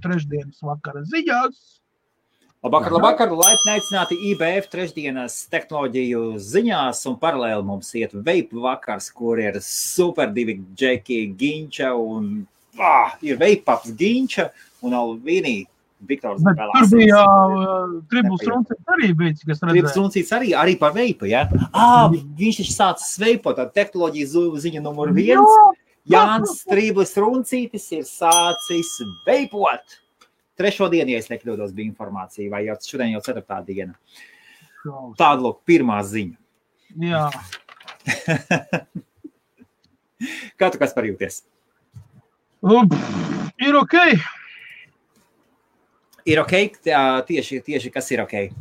Trešdienas vakara ziņās. Labvakar, laipni aicināti IBF trešdienas tehnoloģiju ziņās un paralēli mums iet vape vakars, kur ir super divi džeki Ginča un ir vape-ups Ginča un Alvīnī Viktors. Bet tur bija Tribus Runcīts arī bijis, kas redzēja. Tribus Runcīts arī par vape, ja? Viņš taču sācis veipot, tā tehnoloģija ziņa numur 1. Jānis Tribus Runcītis ir sācis veipot. Trešo dienu, ja es nekļūdos, bija informācija, vai jau šodien jau 4. diena. Tāda, lūk, pirmā ziņa. Jā. Kā tu kas parjūties? Ir ok. Ir ok? Tieši kas ir ok?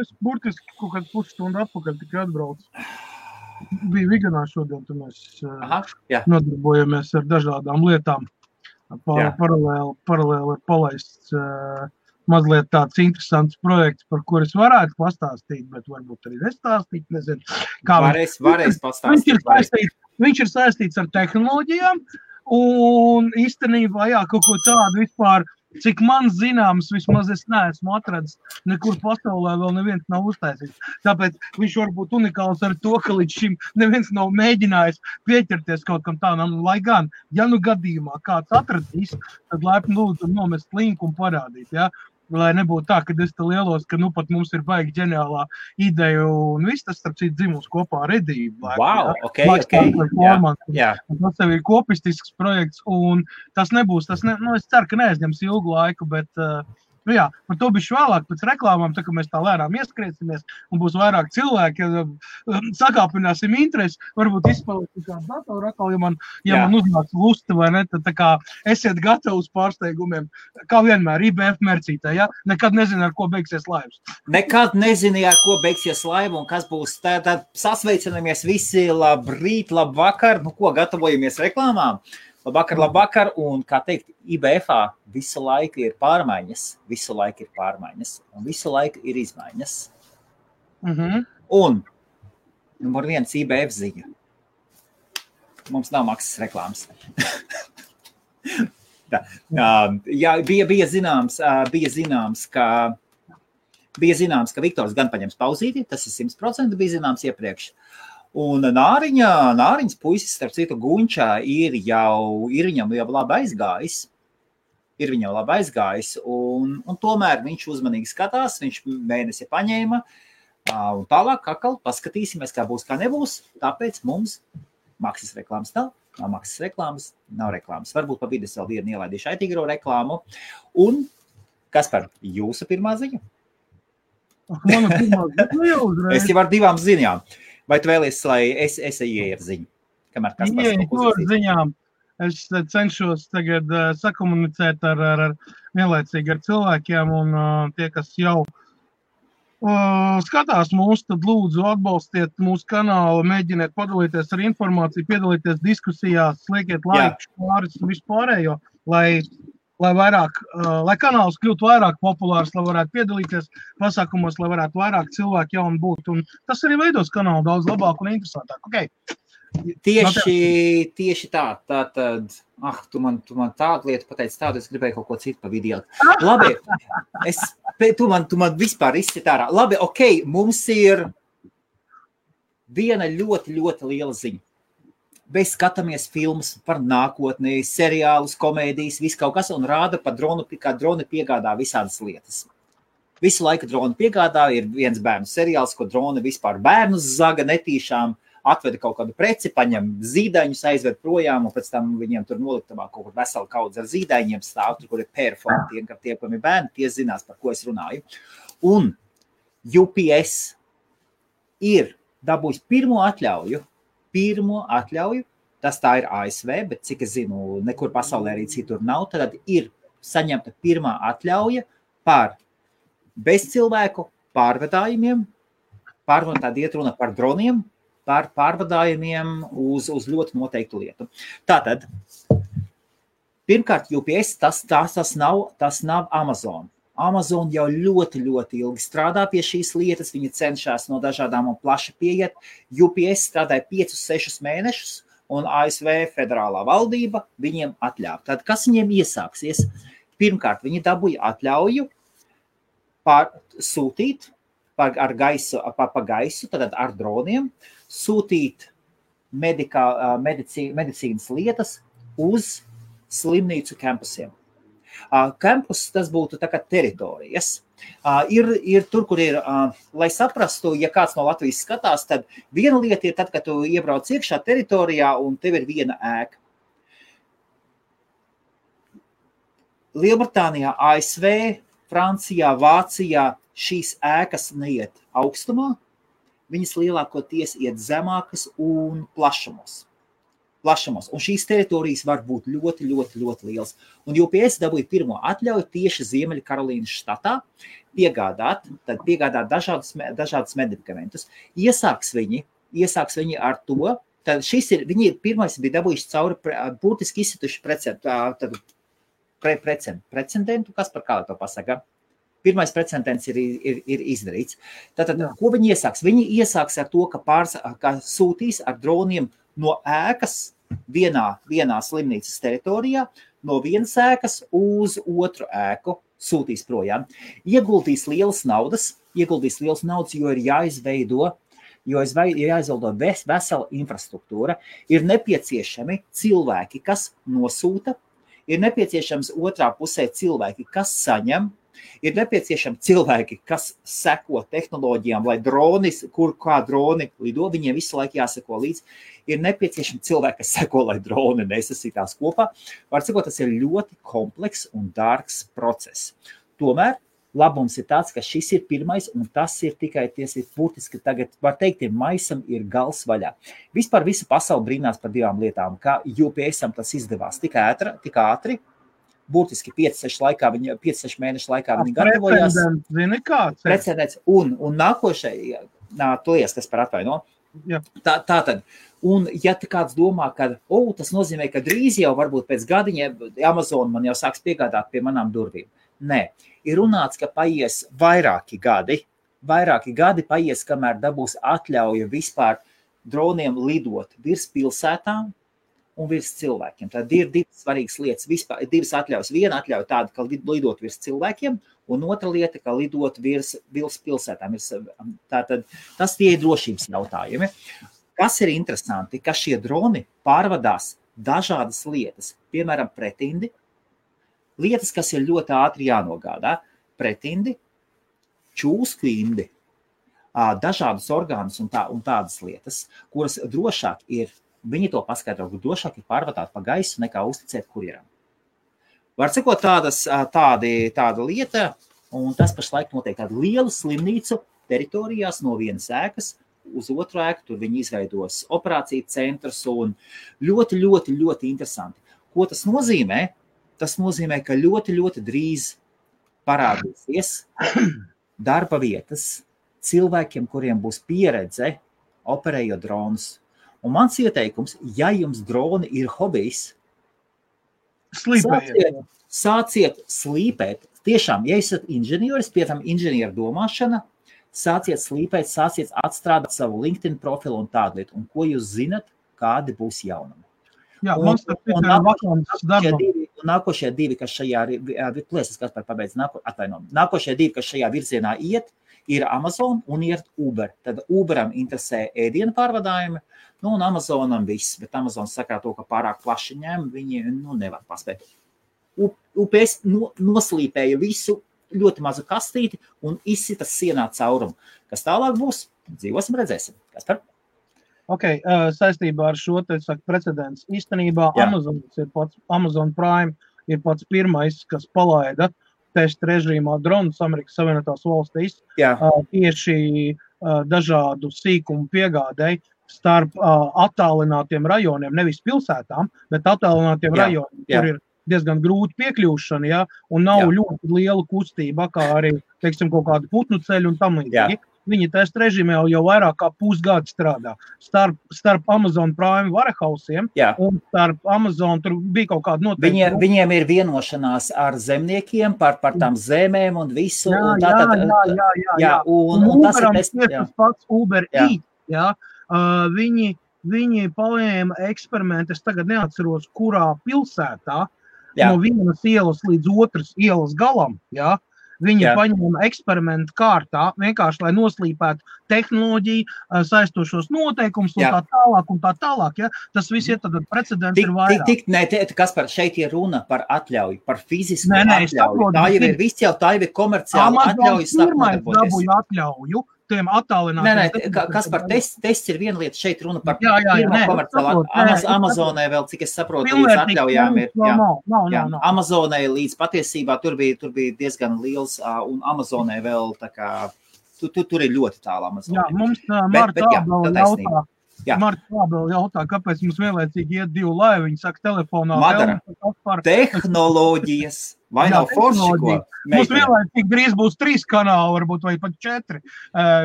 Es burtiski kaut kādu pusstundu atpakaļ tikai atbraucu. Bija Viganā šodien, tu mēs nodarbojamies ar dažādām lietām. Paralēli ir palaists mazliet tāds interesants projekts, par kur es varētu pastāstīt, bet varbūt arī nestāstīt, nezinu. Varēs pastāstīt. Viņš ir saistīts ar tehnoloģijām un īstenībā, kaut ko tādu vispār, cik man zināms, vismaz es neesmu atradis, nekur pasaulē vēl neviens nav uztaisījis. Tāpēc viņš var būt unikāls ar to, ka līdz šim neviens nav mēģinājis pieķerties kaut kam tādam, lai gan, ja nu gadījumā kāds atradīs, tad laipni lūdzu nomest linku un parādīt, ja? Lai nebūtu tā, ka es te lielos, ka nu pat mums ir baigi ģeniālā ideja un viss tas, starp citu, dzimuls kopā ar Edību. Wow, ok. Tas tev ir kopistisks projekts un tas nebūs, es ceru, ka neaizņems ilgu laiku, bet par to bišķi vēlāk pēc reklāmām, tā kā mēs tā lēnām ieskrēsimies un būs vairāk cilvēki, sakāpināsim interesi, varbūt izspēlēsim kādu datoru atkal, ja man uznāks lusta vai ne, tad tā kā esiet gatavi uz pārsteigumiem, kā vienmēr, IBF mercītē, ja? Nekad nezinu, ar ko beigsies laivs. Nekad nezinu, ar ko beigsies laiva un kas būs, tad sasveicinamies visi, labrīt, labvakar, ko gatavojamies reklāmām. Labvakar, un, kā teikt, IBF-ā visu laiku ir pārmaiņas, un visu laiku ir izmaiņas. Un, numur 1 IBF ziņa. Mums nav maksas reklāmas. Bija zināms, ka Viktors gan paņems pauzīti, tas ir 100%, bija zināms iepriekš. Un Nāriņas puisis, starp citu, Gunčā ir viņam jau labi aizgājis, un tomēr viņš uzmanīgi skatās, viņš mēnesi paņēma, un tālāk atkal paskatīsimies, kā būs, kā nebūs, tāpēc mums maksas reklāmas nav maksas reklāmas, nav reklāmas. Varbūt pa vidu vēl vienu ielaidīšu aitīgro reklāmu. Un, Kaspar, jūsu pirmā ziņa? Mana pirmā ziņa jau uzreiz. Es jau ar 2 ziņām. Vai tu vēlies, lai es ieeju ar ziņu? Kamēr Kaspars ziņām. Es cenšos tagad sakomunicēt vienlaicīgi ar cilvēkiem, un tie, kas jau skatās mūs, tad lūdzu atbalstiet mūsu kanālu, mēģiniet padalīties ar informāciju, piedalīties diskusijās, liekiet laiku, pāris un vispārējo, lai kanāls kļūtu vairāk populārs, lai varētu piedalīties pasākumos, lai varētu vairāk cilvēku jauni būt. Un tas arī veidos kanālu daudz labāk un interesantāk. Okay. Tieši tā. Tātad, tu man tādu lietu pateici tādu, es gribēju kaut ko citu pa video. Labi, tu man vispār izsit ārā. Labi, ok, mums ir viena ļoti, ļoti liela ziņa. Mēs skatāmies filmas par nākotni, seriālus, komēdijas, visu kaut kas, un rāda par dronu, kā droni piegādā visādas lietas. Visu laiku droni piegādā, ir viens bērnu seriāls, ko droni vispār bērnus zaga netīšām, atveda kaut kādu preci, paņem zīdaiņus, aizved projām, un pēc tam viņiem tur noliktavā kaut kur vesela kaudze ar zīdaiņiem stāv, tur, kur ir perfoni, tie, kam ir bērni, tie zinās, par ko es runāju. Un UPS ir dabūjis pirmo atļauju, tas tā ir ASV, bet cik es zinu, nekur pasaulē arī citur nav, tad ir saņemta pirmā atļauja par bezcilvēku pārvadājumiem, tad iet runa par droniem, par pārvadājumiem uz ļoti noteiktu lietu. Tātad, pirmkārt, UPS, tas nav Amazon. Amazon jau ļoti, ļoti ilgi strādā pie šīs lietas, viņi cenšas no dažādām un plaši pieiet. UPS strādāja 5-6 mēnešus, un ASV federālā valdība viņiem atļāva. Tad, kas viņiem iesāksies? Pirmkārt, viņi dabūja atļauju sūtīt pa gaisu, tad ar droniem, sūtīt medicīnas lietas uz slimnīcu kampusiem. Kampus, tas būtu tā kā teritorijas. Ir tur, kur ir, lai saprastu, ja kāds no Latvijas skatās, tad viena lieta ir tad, kad tu iebrauc iekšā teritorijā un tev ir viena ēka. Lielbritānijā, ASV, Francijā, Vācijā šīs ēkas neiet augstumā, viņas lielākoties iet zemākas un plašumos. Un šīs teritorijas var būt ļoti, ļoti, ļoti liels. Un UPS dabūja pirmo atļauju tieši Ziemeļkarolīnas štatā piegādāt dažādus medikamentus. Iesāks viņi ar to, tad viņi pirmais bija dabūjuši cauri būtiski izsituši precedentu, kas par kā to pasaka? Pirmais precedents ir izdarīts. Tātad, ko viņi iesāks? Viņi iesāks ar to, ka sūtīs ar droniem no ēkas vienā slimnīcas teritorijā, no vienas ēkas uz otru ēku sūtīs projām. Ieguldīs lielas naudas, jo ir jāizveido vesela infrastruktūra. Ir nepieciešami cilvēki, kas nosūta, ir nepieciešams otrā pusē cilvēki, kas saņem, ir nepieciešami cilvēki, kas seko tehnoloģijām, lai kā droni lido, viņiem visu laiku jāseko līdz. Ir nepieciešami cilvēki, kas seko, lai droni nesasitās kopā. Var sakot, tas ir ļoti komplekss un dārgs process. Tomēr labums ir tāds, ka šis ir pirmais, un tas ir tikai būtiski tagad, var teikt, maisam ir gals vaļā. Vispār visa pasaule brīnās par divām lietām, kā UPS-am tas izdevās tik ātri, būtiski 5-6 mēnešu laikā viņi gatavojās. Precedents. Un nākošais, kas par atvaino. Tātad, un ja kāds domā, ka tas nozīmē, ka drīz jau varbūt pēc gadiņiem Amazon man jau sāks piegādāt pie manām durvīm. Nē, ir runāts, ka paies vairāki gadi paies, kamēr dabūs atļauju vispār droniem lidot virs pilsētām un virs cilvēkiem. Tad ir divas svarīgas lietas, vispār divas atļaujas. Viena atļauja tāda, ka lidot virs cilvēkiem, un otra lieta, ka lidot virs pilsētām. Tātad tas tie ir drošības jautājumi. Kas ir interesanti, ka šie droni pārvadās dažādas lietas, piemēram, pretindi, lietas, kas ir ļoti ātri jānogādā, pretindi, čūskindi, dažādas orgānus un tādas lietas, kuras drošāk ir, viņi to paskaidro, ka drošāk ir pārvadāt pa gaisu nekā uzticēt kurjeram. Var sakot tāda lieta, un tas pašlaik notiek tādu lielu slimnīcu teritorijās no vienas ēkas uz otru ēku, tur viņi izveidos operāciju centrus un ļoti, ļoti, ļoti interesanti. Ko tas nozīmē? Tas nozīmē, ka ļoti, ļoti drīz parādīsies darba vietas cilvēkiem, kuriem būs pieredze operējot dronus. Un mans ieteikums, ja jums droni ir hobijs, sāciet slīpēt. Tiešām, ja esat inženieris, piemēram, inženieru domāšana, sāciet slīpēt, sāciet atstrādāt savu LinkedIn profilu un tādu lietu. Un ko jūs zinat, kādi būs jaunumi. Jā, mums tas ir vakants darbam. Nākošie divi, kas šajā virzienā iet, ir Amazon un ir Uber. Tad Uberam interesē ēdienu pārvadājumi, un Amazonam viss, bet Amazon saka to, ka pārāk plaši ņem, viņi nevar paspēt. UPS noslīpēja visu ļoti mazu kastīti un izsita sienā caurumu. Kas tālāk būs? Dzīvosim, redzēsim. Kas par? Saistībā ar šo precedents. Īstenībā Amazon Prime ir pats pirmais, kas palaida testa režīmā dronus Amerikas Savienotās valstīs tieši dažādu sīkumu piegādēji starp attālinātiem rajoniem, nevis pilsētām, bet attālinātiem rajoniem, kur ir diezgan grūti piekļūšana, un nav ļoti liela kustība, kā arī, teiksim, kaut kādu putnu ceļu un tam līdzīgi. Viņi testa režīmē jau vairāk kā pusgadu strādā. Starp Amazon Prime warehousiem un starp Amazon tur bija kaut kāda noteikta. Viņiem ir vienošanās ar zemniekiem par tām zemēm un visu. Un Uberam ir tas pats Uber Eats. Viņi viņi paņēma eksperimentu, es tagad neatceros, kurā pilsētā, no vienas ielas līdz otras ielas galam, jā, viņi paņēma eksperimentu kārtā, vienkārši, lai noslīpētu tehnoloģiju, saistošos noteikumus un tā tālāk, ja? Tas viss ir tad precedents ir vairāk. Kaspar, šeit ir runa par atļauju, par fizisku atļauju. Tā jau ir viss jau, tā jau ir komerciāla atļauju sāk nodarboties. Atļauju. Tiem attālinātiem. Kaspar, tests ir viena lieta, šeit runa par pirmo komerciālu. Amazonē vēl, cik es saprotu, līdz atļaujām ir. Amazonē līdz patiesībā tur bija diezgan liels, un Amazonē vēl tā kā, tur ir ļoti tālu Amazonē. Jā, mums Marta jautā, kāpēc mums vienlaicīgi iet 2 laivi, viņi saka telefonā. Madara, tehnoloģijas, vai nav forši, ko? Mums vienlaicīgi drīz būs 3 kanāli, varbūt, vai pat 4.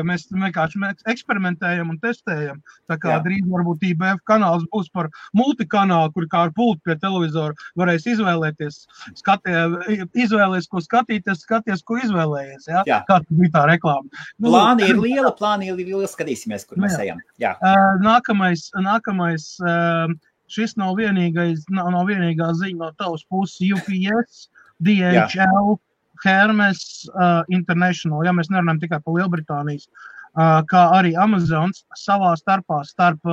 Mēs vienkārši eksperimentējam un testējam. Tā kā drīz varbūt IBF kanāls būs par multikanālu, kur kā ar pultu pie televizora varēs izvēlēties. Izvēlēs, ko skatīties, skaties, ko izvēlējies. Ja? Kā bija tā reklāma. Plāni ir liela, skatīsimies, kur mēs ejam. Jā. Nākamais, šis nav vienīgā ziņa no tavas puses, UPS, DHL, Hermes International, ja mēs nerunājam tikai par Lielbritānijas, kā arī Amazons savā starpā starp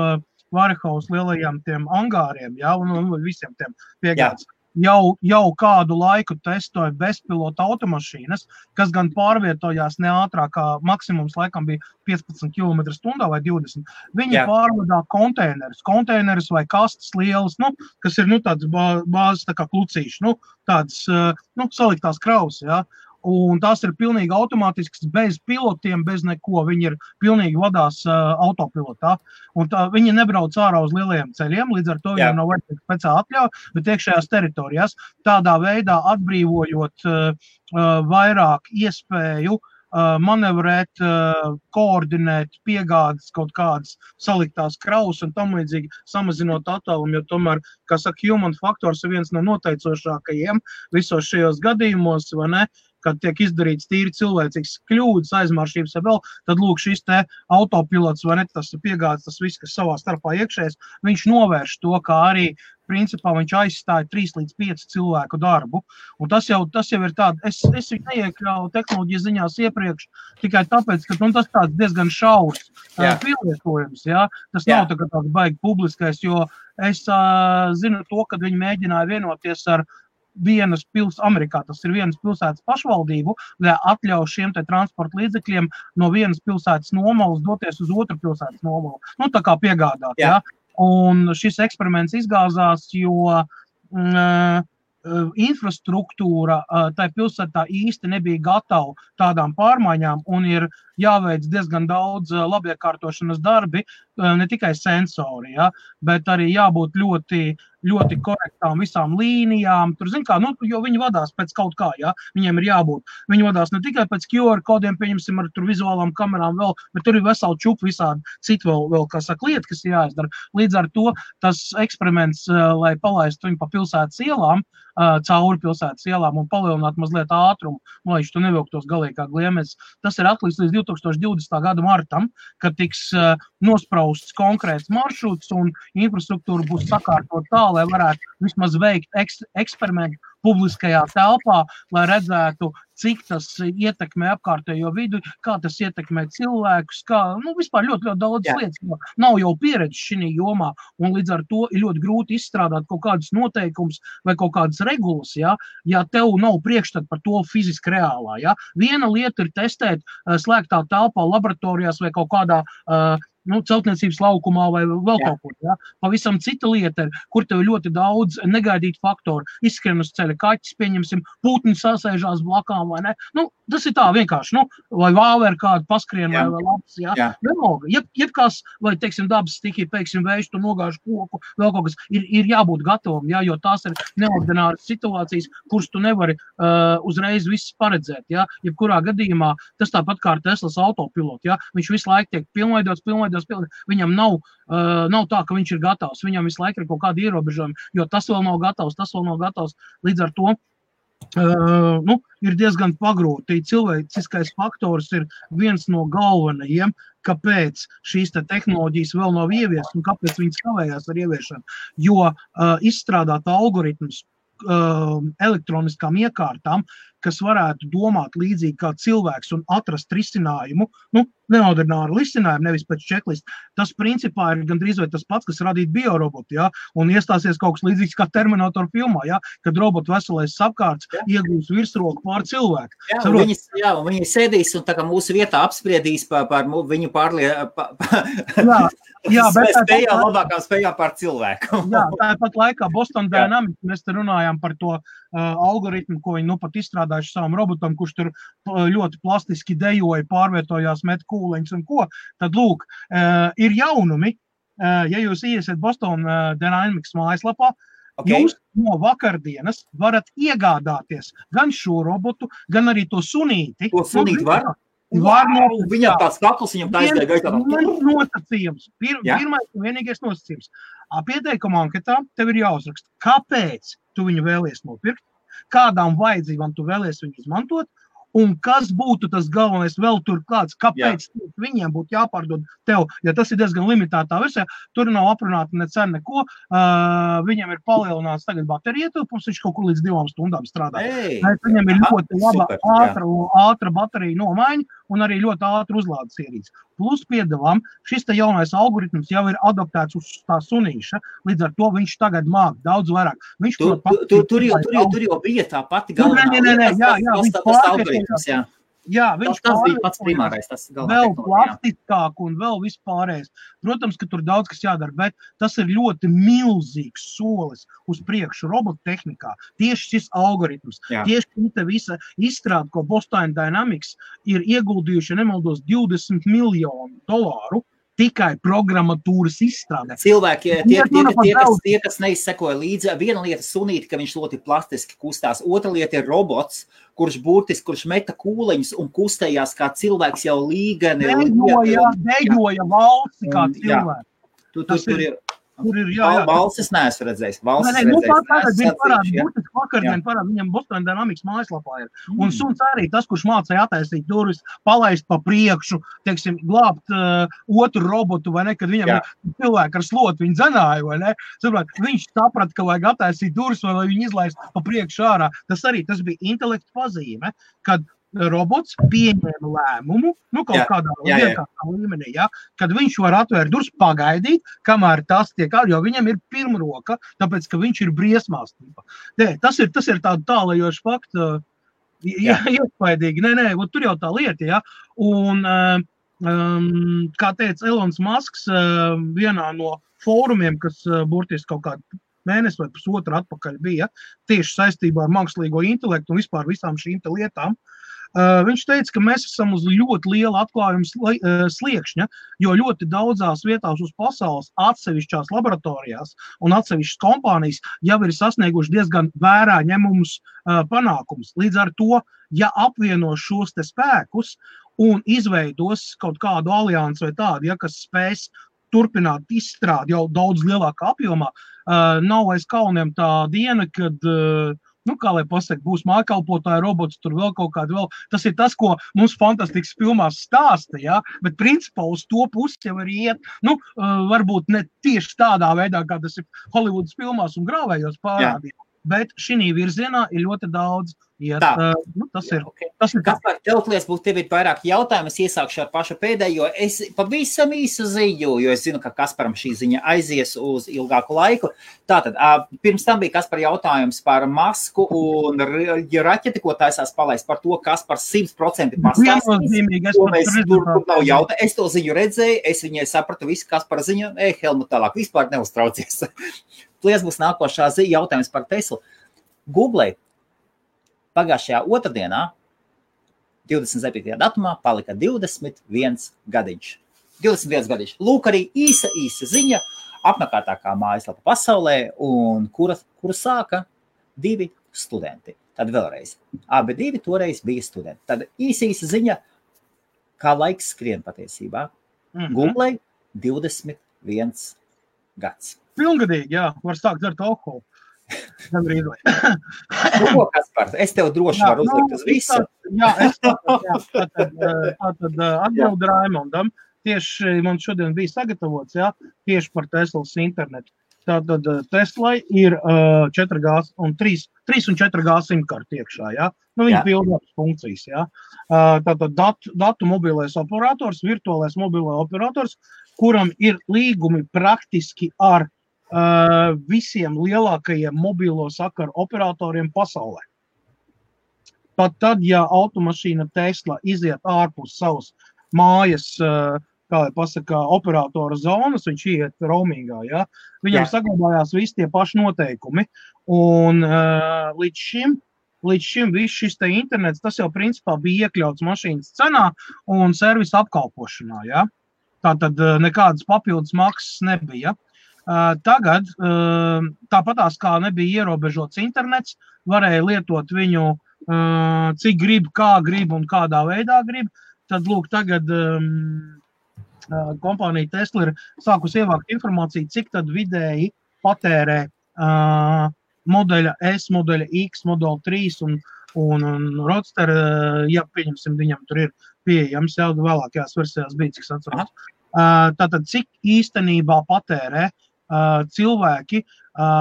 Warehouse lielajiem tiem angāriem, ja, un visiem tiem piegādes. Jau kādu laiku testoja bezpilota automašīnas, kas gan pārvietojās ne ātrāk, kā maksimums laikam bija 15 km/h vai 20. Viņi pārvadā konteinerus vai kastes lielas, kas ir tāds bāzes tā kā klucīši, tāds saliktās kravas, ja. Un tās ir pilnīgi automātisks, bez pilotiem, bez neko. Viņi ir pilnīgi vadās autopilotā. Un viņi nebrauc ārā uz lielajiem ceļiem, līdz ar to viņiem nav vajadzīga speciāla atļauja, bet iekšējās teritorijās, tādā veidā atbrīvojot vairāk iespēju manevrēt, koordinēt piegādes kaut kādas saliktās kravas un tam līdzīgi samazinot attālumu, jo tomēr, kā saka, human faktors ir viens no noteicošākajiem visos šajos gadījumos, vai ne? Kad tiek izdarīts tīri cilvēcīgs kļūdas, aizmaršības vai vēl, tad lūk šis te autopilots vai ne, tas piegādes, tas viss, kas savā starpā iekšējais, viņš novērš to, kā arī principā viņš aizstāja 3 līdz 5 cilvēku darbu. Un tas jau ir tāda, es viņu neiekļauju tehnoloģijas ziņās iepriekš, tikai tāpēc, ka tas tāds diezgan šaurs pielietojums, ja? Tas nav tā kā tāds baigi publiskais, jo es zinu to, kad viņi mēģināja vienoties ar vienas Amerikā, tas ir vienas pilsētas pašvaldību, lai atļauj šiem te transporta līdzekļiem no vienas pilsētas nomalas doties uz otru pilsētas nomalu. Tā kā piegādāt, ja? Un šis eksperiments izgāzās, jo infrastruktūra tai pilsētā īsti nebija gatava tādām pārmaiņām un ir jāveic diezgan daudz labiekārtošanas darbi, ne tikai sensori, ja, bet arī jābūt ļoti korektām visām līnijām. Tur, jo viņi vadās pēc kaut kā, ja, viņiem ir jābūt. Viņi vadās ne tikai pēc QR kodiem, pieņemsim ar tur vizuālām kamerām vēl, bet tur ir veseli čupi visādi citu vēl, kā saka, lieta, kas ir jāizdara. Līdz ar to tas eksperiments, lai palaistu viņu pa pilsētas ielām, cauri pilsētas ielām un palielinātu mazliet ātrumu, lai viņš tu nevilktos galīgi kā gliemežs. Tas ir atliks līdz 2020. Gada martam, kad tiks nosprausts konkrēts maršruts un infrastruktūra būs sakārtot tā, lai varētu vismaz veikt eksperimentu publiskajā telpā, lai redzētu, cik tas ietekmē apkārtējo vidu, kā tas ietekmē cilvēkus, vispār ļoti daudz lietas, jo nav jau pieredze šī jomā, un līdz ar to ir ļoti grūti izstrādāt kaut kādus noteikumus vai kaut kādas regulas, ja tev nav priekšstat par to fiziski reālā. Ja? Viena lieta ir testēt slēgtā telpā, laboratorijās vai kaut kādā celtniecības laukumā vai vēl kaut kur. Ja? Pavisam cita lieta ir, kur tev ir ļoti daudz negaidītu faktoru. Izskrien uz ceļa kaķis, pieņemsim, putni sasēžās blakām vai ne. Tas ir tā vienkārši, vai vāver kādu paskrien vai labs. Ja? Jebkās, vai, teiksim, dabas stikī, pēksim, vējš, tu nogāžu koku, vēl kaut kas, ir jābūt gatavam, ja? Jo tās ir neordināras situācijas, kuras tu nevari uzreiz viss paredzēt. Ja? Jebkurā gadījumā tas tāpat kā ar Teslas autopilotu. Ja? Viņš visu laiku tiek pilnveidots. Viņam nav tā, ka viņš ir gatavs. Viņam visu laiku ir kaut kādi ierobežojumi, jo tas vēl nav gatavs. Līdz ar to ir diezgan pagrūti. Cilvēciskais faktors ir viens no galvenajiem, kāpēc šīs tehnoloģijas vēl nav ieviestas un kāpēc viņas kavējās ar ieviešanu. Jo izstrādāt algoritmus elektroniskām iekārtām, kas varētu domāt līdzīgi kā cilvēks un atrast risinājumu, neordināru risinājumu, nevis pēc checklist. Tas principā ir gandrīz vai tas pats, kas radīt biorobotu, ja? Un iestāsies kaut kas līdzīgs kā Terminator filmā, ja? Kad robotu veselais apkārts iegūs virsroku pār cilvēku. Viņi sēdīs un tā kā mūsu vietā apspriedīs par viņu spējām, labākām spējām pār cilvēku. Jā, tāpat laikā Boston Dynamics, mēs te runājām par to algoritmu, ko viņi pat izstrādājuši savam robotam, kurš tur ļoti plastiski dejoja, pārvietojās, met kūleņus un ko. Tad, lūk, ir jaunumi. Ja jūs iesiet Boston Dynamics mājaslapā, jūs no vakardienas varat iegādāties gan šo robotu, gan arī to sunīti. To sunīti var? Viņam tāds kakls, viņam tā izgāja gaitā. Nosacījums. Pirmais un vienīgais nosacījums. Pieteikumā anketā tev ir jāuzraksta, kāpēc tu viņu vēlies nopirkt, kādām vajadzībām tu vēlies viņu izmantot, un kas būtu tas galvenais vēl tur kāds, kāpēc viņiem būtu jāpārdod tev, ja tas ir diezgan limitētā versijā, tur nav aprunāta ne cena neko, viņam ir palielināts tagad baterija ietilpums, viņš kaut kur līdz 2 stundām strādā. Viņam ir ļoti laba ātra baterija nomaiņa un arī ļoti ātra uzlādes ierīce. Plus piedevām, šis te jaunais algoritms jau ir adaptēts uz tā sunīša, līdz ar to viņš tagad māk daudz vairāk. Tur jau bija tā pati galvenā. Viņš bija pats primārais, tas vēl plastiskāk un vēl vispārējais. Protams, ka tur daudz kas jādara, bet tas ir ļoti milzīgs solis uz priekšu robotu tehnikā. Tieši šis algoritms, tieši šī visa izstrāde, ko Boston Dynamics ir ieguldījuši, nemaldos, $20 miljonu tikai programmatūras izstrādē. Cilvēki, tie, kas neizsekoja līdzi, viena lieta sunīti, ka viņš ļoti plastiski kustās. Otra lieta ir robots, kurš meta kūleņus un kustējās kā cilvēks jau līgani. Dejoja valsti kā cilvēks. Tur ir valsts neesmu redzējis. Vakardien parāda, viņam Boston Dynamics mājaslapā ir. Un suns arī tas, kurš mācīja attaisīt durvis, palaist pa priekšu, teiksim, glābt otru robotu, vai ne, kad viņam cilvēki ar slotu viņu dzenāja, vai ne. Viņš saprata, ka vajag attaisīt durvis, vai lai viņu izlaist pa priekšu ārā. Tas bija intelekta pazīme, kad robots pieņēma lēmumu, kaut kādā vienkāršā līmenī, kad viņš var atvērt durvis, pagaidīt, kamēr tas tiek jo viņam ir pirmroka, tāpēc, ka viņš ir briesmās. Tas ir tāda tālajoša fakta, iespaidīgi. Tur jau tā lieta, Un, kā teica Elons Musks, vienā no fórumiem, kas burtiski kaut kādu mēnesi vai pusotru atpakaļ bija, tieši saistībā ar mākslīgo intelektu un vispār visām šīm lietām, viņš teica, ka mēs esam uz ļoti liela atklājuma sliekšņa, jo ļoti daudzās vietās uz pasaules atsevišķās laboratorijās un atsevišķas kompānijas jau ir sasnieguši diezgan vērā ņemumus panākumus. Līdz ar to, ja apvieno šos te spēkus un izveidos kaut kādu aliansi vai tādu, kas spēs turpināt izstrādi jau daudz lielākā apjomā, nav aiz kauniem tā diena, kad kā lai pasaka, būs mājkalpotāja robots, tur vēl kaut kādu vēl. Tas ir tas, ko mums fantastikas filmās stāsta, bet principā uz to pusi jau arī iet, varbūt ne tieši tādā veidā, kā tas ir Hollywoodas filmās un grāvējos parādīt, bet šī virzienā ir ļoti daudz iet. Tas ir. Kaspar, tev ir vairāk jautājumu, es iesākšu ar pašu pēdējo. Es pavisam īsu ziņu, jo es zinu, ka Kasparam šī ziņa aizies uz ilgāku laiku. Tātad, pirms tam bija Kaspar jautājums par Masku un raķeti, ko taisās palaist par to, Kaspar 100% pastāstīs. Es to ziņu redzēju, es viņai sapratu visu Kaspara ziņu, Helmut tālāk, vispār neuztraucies. Plies būs nākošā jautājums par Teslu. Google pagājušajā otrdienā, 27. datumā, palika 21 gadiņš. 21 gadiņš. Lūk, arī īsa ziņa, apmeklētākā mājaslapa pasaulē, un kuru sāka 2 studenti. Tad vēlreiz. Abi 2 toreiz bija studenti. Tad īsa ziņa, kā laiks skrien patiesībā. Google 21 gads. Pilngadīgi, var sākt dzert alkoholu. Kaspar, es tev droši varu uzlikt uz visu. Tātad atbildu Raimondam. tieši man šodien bija sagatavots, jā, tieši par Teslas internetu. Tātad Teslai ir 4G un 3 un 4G simkarti iekšā, jā. Nu, viņi pildās funkcijas, jā. Tātad datu mobilais operators, virtuālais mobilais operators, kuram ir līgumi praktiski ar visiem lielākajiem mobilo sakaru operatoriem pasaulē. Pat tad, ja automašīna Tesla iziet ārpus savas mājas, kā lai pasaka, operatora zonas, viņš iet roamingā, ja? Viņam saglabājās visi tie paši noteikumi. Un līdz šim viss šis te internets, tas jau principā bija iekļauts mašīnas cenā un servisa apkalpošanā, ja? Tātad nekādas papildus maksas nebija. Tagad, tāpatās kā nebija ierobežots internets, varēja lietot viņu cik grib, kā grib un kādā veidā grib, tad lūk tagad kompānija Tesla ir sākus ievākt informāciju, cik tad vidēji patērē modeļa S, modeļa X, modeļa 3 un Roadster, ja pieņemsim, viņam tur ir pieejams, jau vēlākajās versijās bija, cik atceros. Tātad, cik īstenībā patērē cilvēki,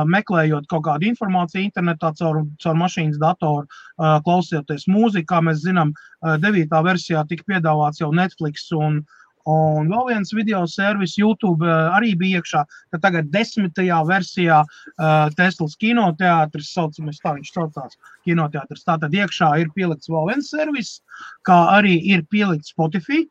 meklējot kaut kādu informāciju internetā caur mašīnas datoru, klausoties mūziku, kā mēs zinām, 9. versijā tika piedāvāts jau Netflix un vēl viens video servis YouTube arī bija iekšā, ka tagad 10. versijā Teslas kinoteātris, saucamies tā, viņš saucās kinoteātris, tātad iekšā ir pielikts vēl viens servis, kā arī ir pielikts Spotify.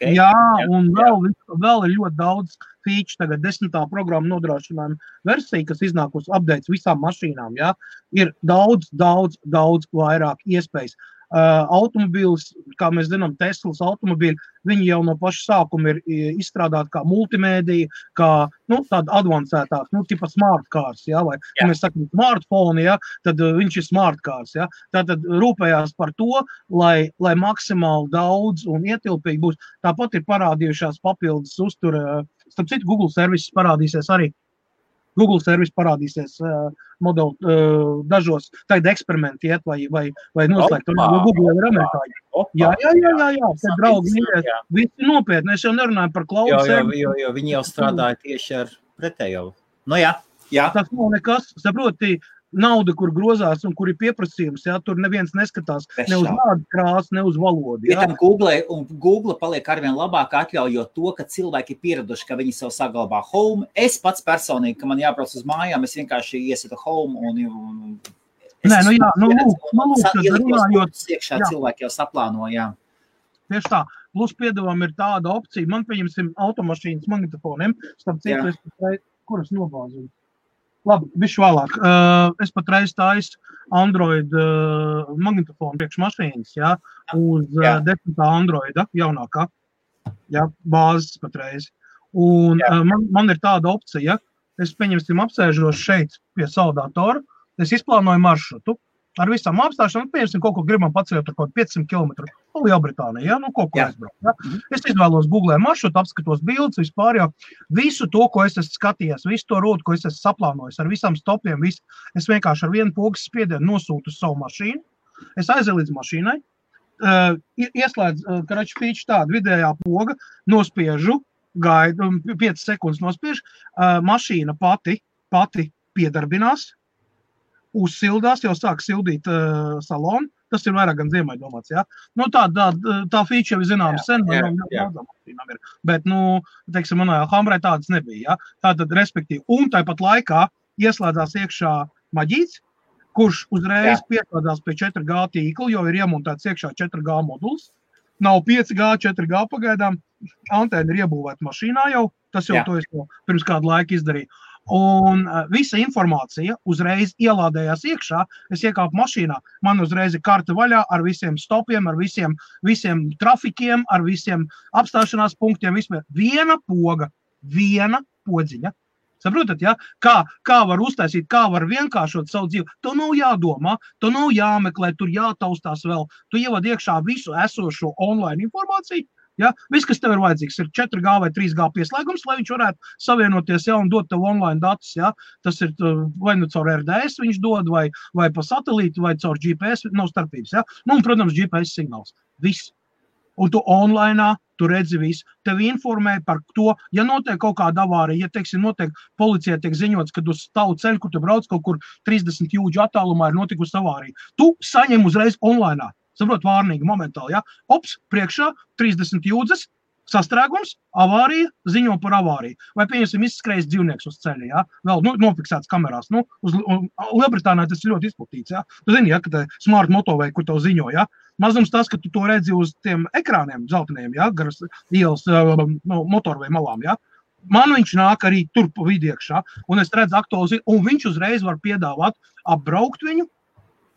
Jā, un vēl ir ļoti daudz feature, tagad 10. programma nodrošinājuma versija, kas iznākus updates visām mašīnām, jā, ir daudz vairāk iespējas. Automobīls, kā mēs zinām, Teslas automobīļi, viņi jau no paša sākuma ir izstrādāti kā multimēdija, kā, tāda advancētāk, tipa smart cars, jā, vai, ja mēs sakam smartphone, jā, tad viņš ir smart cars, jā. Tātad rūpējās par to, lai maksimāli daudz un ietilpīgi būs. Tāpat ir parādījušās papildus uztura, starp citu, Google servises parādīsies arī. Google servis parādīsies modeli dažos, tagad eksperimenti iet vai noslēgt, jo Google ir amerikāņi. Jā, te draugi mīļies, visi nopietni, es jau nerunāju par cloud servisu. Jo viņi jau strādāja tieši ar pretējo. Nu jā. Tas nav nekas, saproti, nauda, kur grozās un kur ir pieprasījums, jā, tur neviens neskatās ne uz vārdu krāsu, ne uz valodu. Jā. Google paliek arvien labāk atļaujot to, ka cilvēki ir pieraduši, ka viņi sev saglabā home. Es pats personīgi, ka man jābrauc uz mājām, es vienkārši iesietu home un iekšā cilvēki jau saplāno, jā. Tieši tā. Plus piedāvām ir tāda opcija, man pieņemsim automašīnas magnetofoniem, starp citu, kuras nobāzinu. Labi, bišķi vēlāk. Es patreiz taisu Android magnetofonu priekš mašīnas, jā, uz 10. Androida jaunākā, jā, bāzes patreiz. Un man ir tāda opcija, es pieņemsim apsēžos šeit pie savu datoru, es izplānoju maršrutu ar visām apstāšanām, pieņemsim kaut ko gribam paceļot ar kaut 500 km Lielbritānijā, jā, kaut ko aizbraukt. Jā. Es izvēlos Google maršrutu, apskatos bildes, vispār jau visu to, ko es esmu skatījies, visu to rotu, ko es esmu saplānojis, ar visām stopiem, es vienkārši ar vienu pogas spiedienu nosūtu uz savu mašīnu, es aizēju līdz mašīnai, ieslēdz, karaču feature tādu vidējā poga, nospiežu, gaidu, 5 sekundes nospiežu, mašīna pati piedarbinās, uzsildās, jau sāk sildīt salonu, tas ir vairāk gan ziemai domāts, jā. Tā feature jau zinām sen, bet, teiksim, manā Humrai tādas nebija, jā. Tātad, respektīvi, un tāpat laikā ieslēdzās iekšā maģīts, kurš uzreiz pieslēdzās pie 4G tīkla, jo ir iemontēts iekšā 4G moduls, nav 5G, 4G pagaidām, antēna ir iebūvēta mašīnā jau, tas jau to es pirms kādu laiku izdarīju. Un visa informācija uzreiz ielādējās iekšā, es iekāpu mašīnā, man uzreiz ir karta vaļā ar visiem stopiem, ar visiem trafikiem, ar visiem apstāšanās punktiem, vispār. Viena poga, viena podziņa. Saprotat, ja? Kā var uztaisīt, kā var vienkāršot savu dzīvi, to nav jādomā, to nav jāmeklē, tur jātaustās vēl, tu ievad iekšā visu esošo online informāciju. Ja? Viss, kas tev ir vajadzīgs, ir 4G vai 3G pieslēgums, lai viņš varētu savienoties un dot tev online datus. Ja? Tas ir vai caur RDS viņš dod, vai pa satelītu, vai caur GPS, nav starpības. Ja? Un, protams, GPS signāls. Viss. un tu online, tu redzi visu. Tevi informē par to, ja notiek kaut kāda avārija, ja, teiksim, notiek policijai tiek ziņots, kad uz tavu ceļu, kur tu brauc kaut kur 30 jūdžu attālumā ir notikusi avārija. Tu saņem uzreiz online. Saprot, vārnīgi, momentāli, ja? Ops, priekšā 30 jūdzes, sastrēgums, avārija, ziņo par avāriju. Vai, pieņemsim, izskrējis dzīvnieks uz ceļa, ja? Vēl nofiksēts kamerās. Lielbritānijā tas ir ļoti izplatīts, ja? Tu zini, ja, ka te smart motovei, kur tev ziņo, ja? Mazums tas, ka tu to redzi uz tiem ekrāniem dzelteniem, ja? Garas ielas motorvei malām, ja? Man viņš nāk arī tur pa vidu iekšā, un es redzu aktuāli, un viņš uzreiz var piedāvāt apbraukt viņu,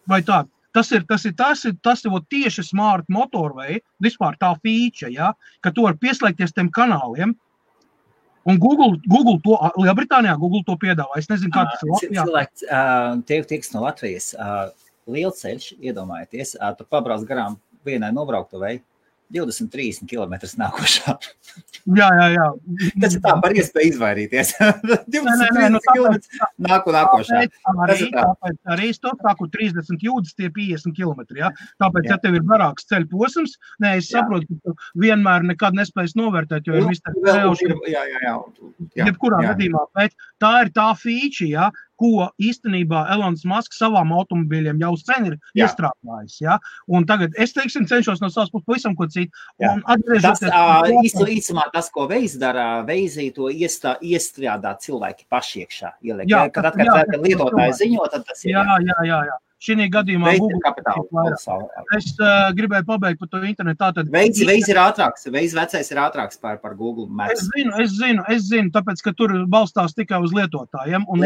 vai tā. Tas ir tieši smart motorvei, vispār tā feature, ja, ka tu vari pieslēgties tiem kanāliem, un Google to, Lielbritānijā Google to piedāvā. Es nezinu, kā tas ir Latvijā. Cilvēks tieks no Latvijas, lielceļš, iedomājieties, tu pabrauc garām vienai nobrauktuvei, 20-30 kilometrus nākošā. Jā. Tas ir tā par iespēju izvairīties. 20-30 kilometrus nākošā. Tāpēc arī es to saku 30 jūdzes, tie 50 kilometri. Ja? Tāpēc, ja tev ir garāks ceļu posms, es saprotu, ka tu vienmēr nekad nespējas novērtēt, jo ir jebkurā gadījumā. Bet tā ir tā feature, ja? Ko īstenībā Elonas Masks savām automobīļiem jau sen ir iestrādājis. Ja? Un tagad es, teiksim, cenšos no savas puses pavisam ko citu. Īsumā tas, ko Waze dara, Waze to iestrādā cilvēki paši iekšā. Kad lietotāji ziņo, tad tas ir. Jā. Šī gadījumā es gribēju pabeigt par to internetu. Waze ir ātrāks, Waze vecais ir ātrāks par Google Maps. Es zinu, tāpēc, ka tur balstās tikai uz lietotājiem. Un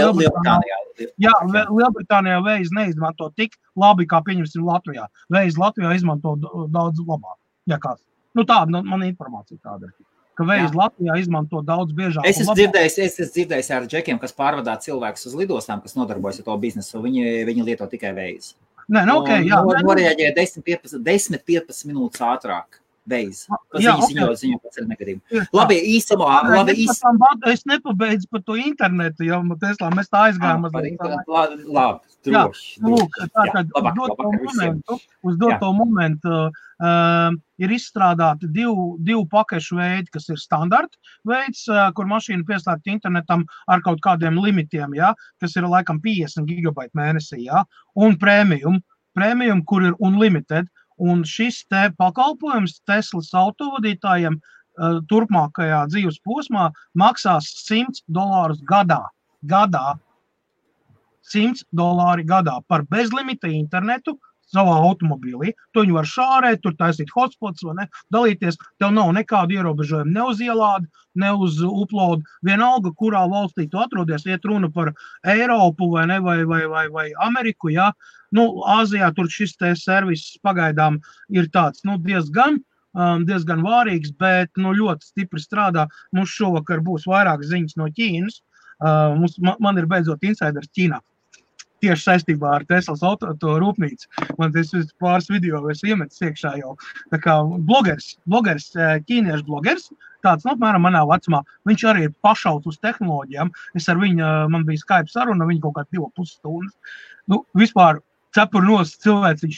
Lielbritānijā Waze neizmanto tik labi, kā pieņemsim Latvijā. Waze Latvijā izmanto daudz labāk. Ja kāds. Tāda man informācija tāda ir. Ka Waze Latvijā izmanto daudz biežāk. Es esmu dzirdējis ar džekiem, kas pārvadā cilvēkus uz lidostām, kas nodarbojas ar to biznesu. Viņi lieto tikai Waze. Norēģē 10-15 minūtes ātrāk. Waze. Ziņo pēc negadījumu. Labi, īsumā. Es nepabeidzu par to internetu, jo Teslā mēs tā aizgājām. Labi, droši. Uz doto momentu ir izstrādāti divu pakešu veidi, kas ir standarta veids, kur mašīna pieslēgta internetam ar kaut kādiem limitiem, ja, kas ir laikam 50 gigabaiti mēnesī, ja, un premium, kur ir unlimited. Un šis te pakalpojums Teslas autovadītājiem turpmākajā dzīves posmā maksās $100 gadā. $100 gadā par bezlimita internetu savā automobīlī. Tu viņu var šārēt, tur taisīt hotspots, vai ne, dalīties. Tev nav nekādu ierobežojumu ne uz ielādi, ne uz upload. Vienalga, kurā valstī tu atrodies, iet runa par Eiropu vai ne, vai Ameriku, ja. Āzijā tur šis te servis pagaidām ir tāds, diezgan vārīgs, bet ļoti stipri strādā. Mums šovakar būs vairāk ziņas no Ķīnas. Man ir beidzot insiders Ķīnā. Tieši saistībā ar Teslas auto rūpnīcu. Man tas pāris video es iemetis iekšā jau. Tā kā blogers, ķīniešu blogers, tāds, apmēram manā vecumā, viņš arī ir pašauts uz tehnoloģijām. Es ar viņu, man bija Skype saruna, viņa kaut kā 2,5 stundas. Vispār cepur nos cilvēks, viņš,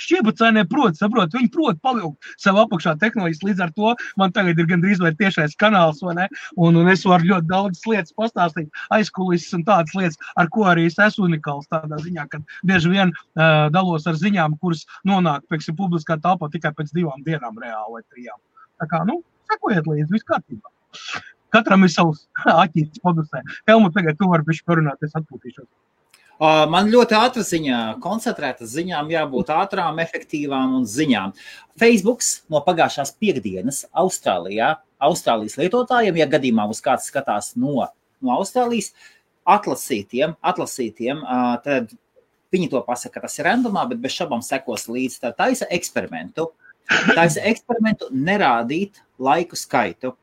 šķiebacēnē saprot, viņi prot pavilkt sev apakšā tehnoloģijas, līdz ar to man tagad ir gandrīz vai tiešais kanāls, vai ne, un es varu ļoti daudz lietas pastāstīt, aizkulises un tādas lietas, ar ko arī es esmu unikāls tādā ziņā, kad bieži vien dalos ar ziņām, kuras nonāk, pieksim, publiskā telpā tikai pēc 2 dienām reāli vai 3. Tā kā, sekojiet līdzi, viss kārtībā. Katram ir savs aķītis padusē. Helmut, tagad tu vari bišķi parunāt, es atpūtīšos. Man ļoti ātra ziņā, koncentrētas ziņām jābūt ātrām, efektīvām un ziņām. Facebooks no pagājušās piekdienas Austrālijas lietotājiem, ja gadījumā uz kāds skatās no Austrālijas, atlasītiem, tad viņi to pasaka, ka tas ir randomā, bet bez šabām sekos līdz. Tā taisa eksperimentu nerādīt laiku skaitu.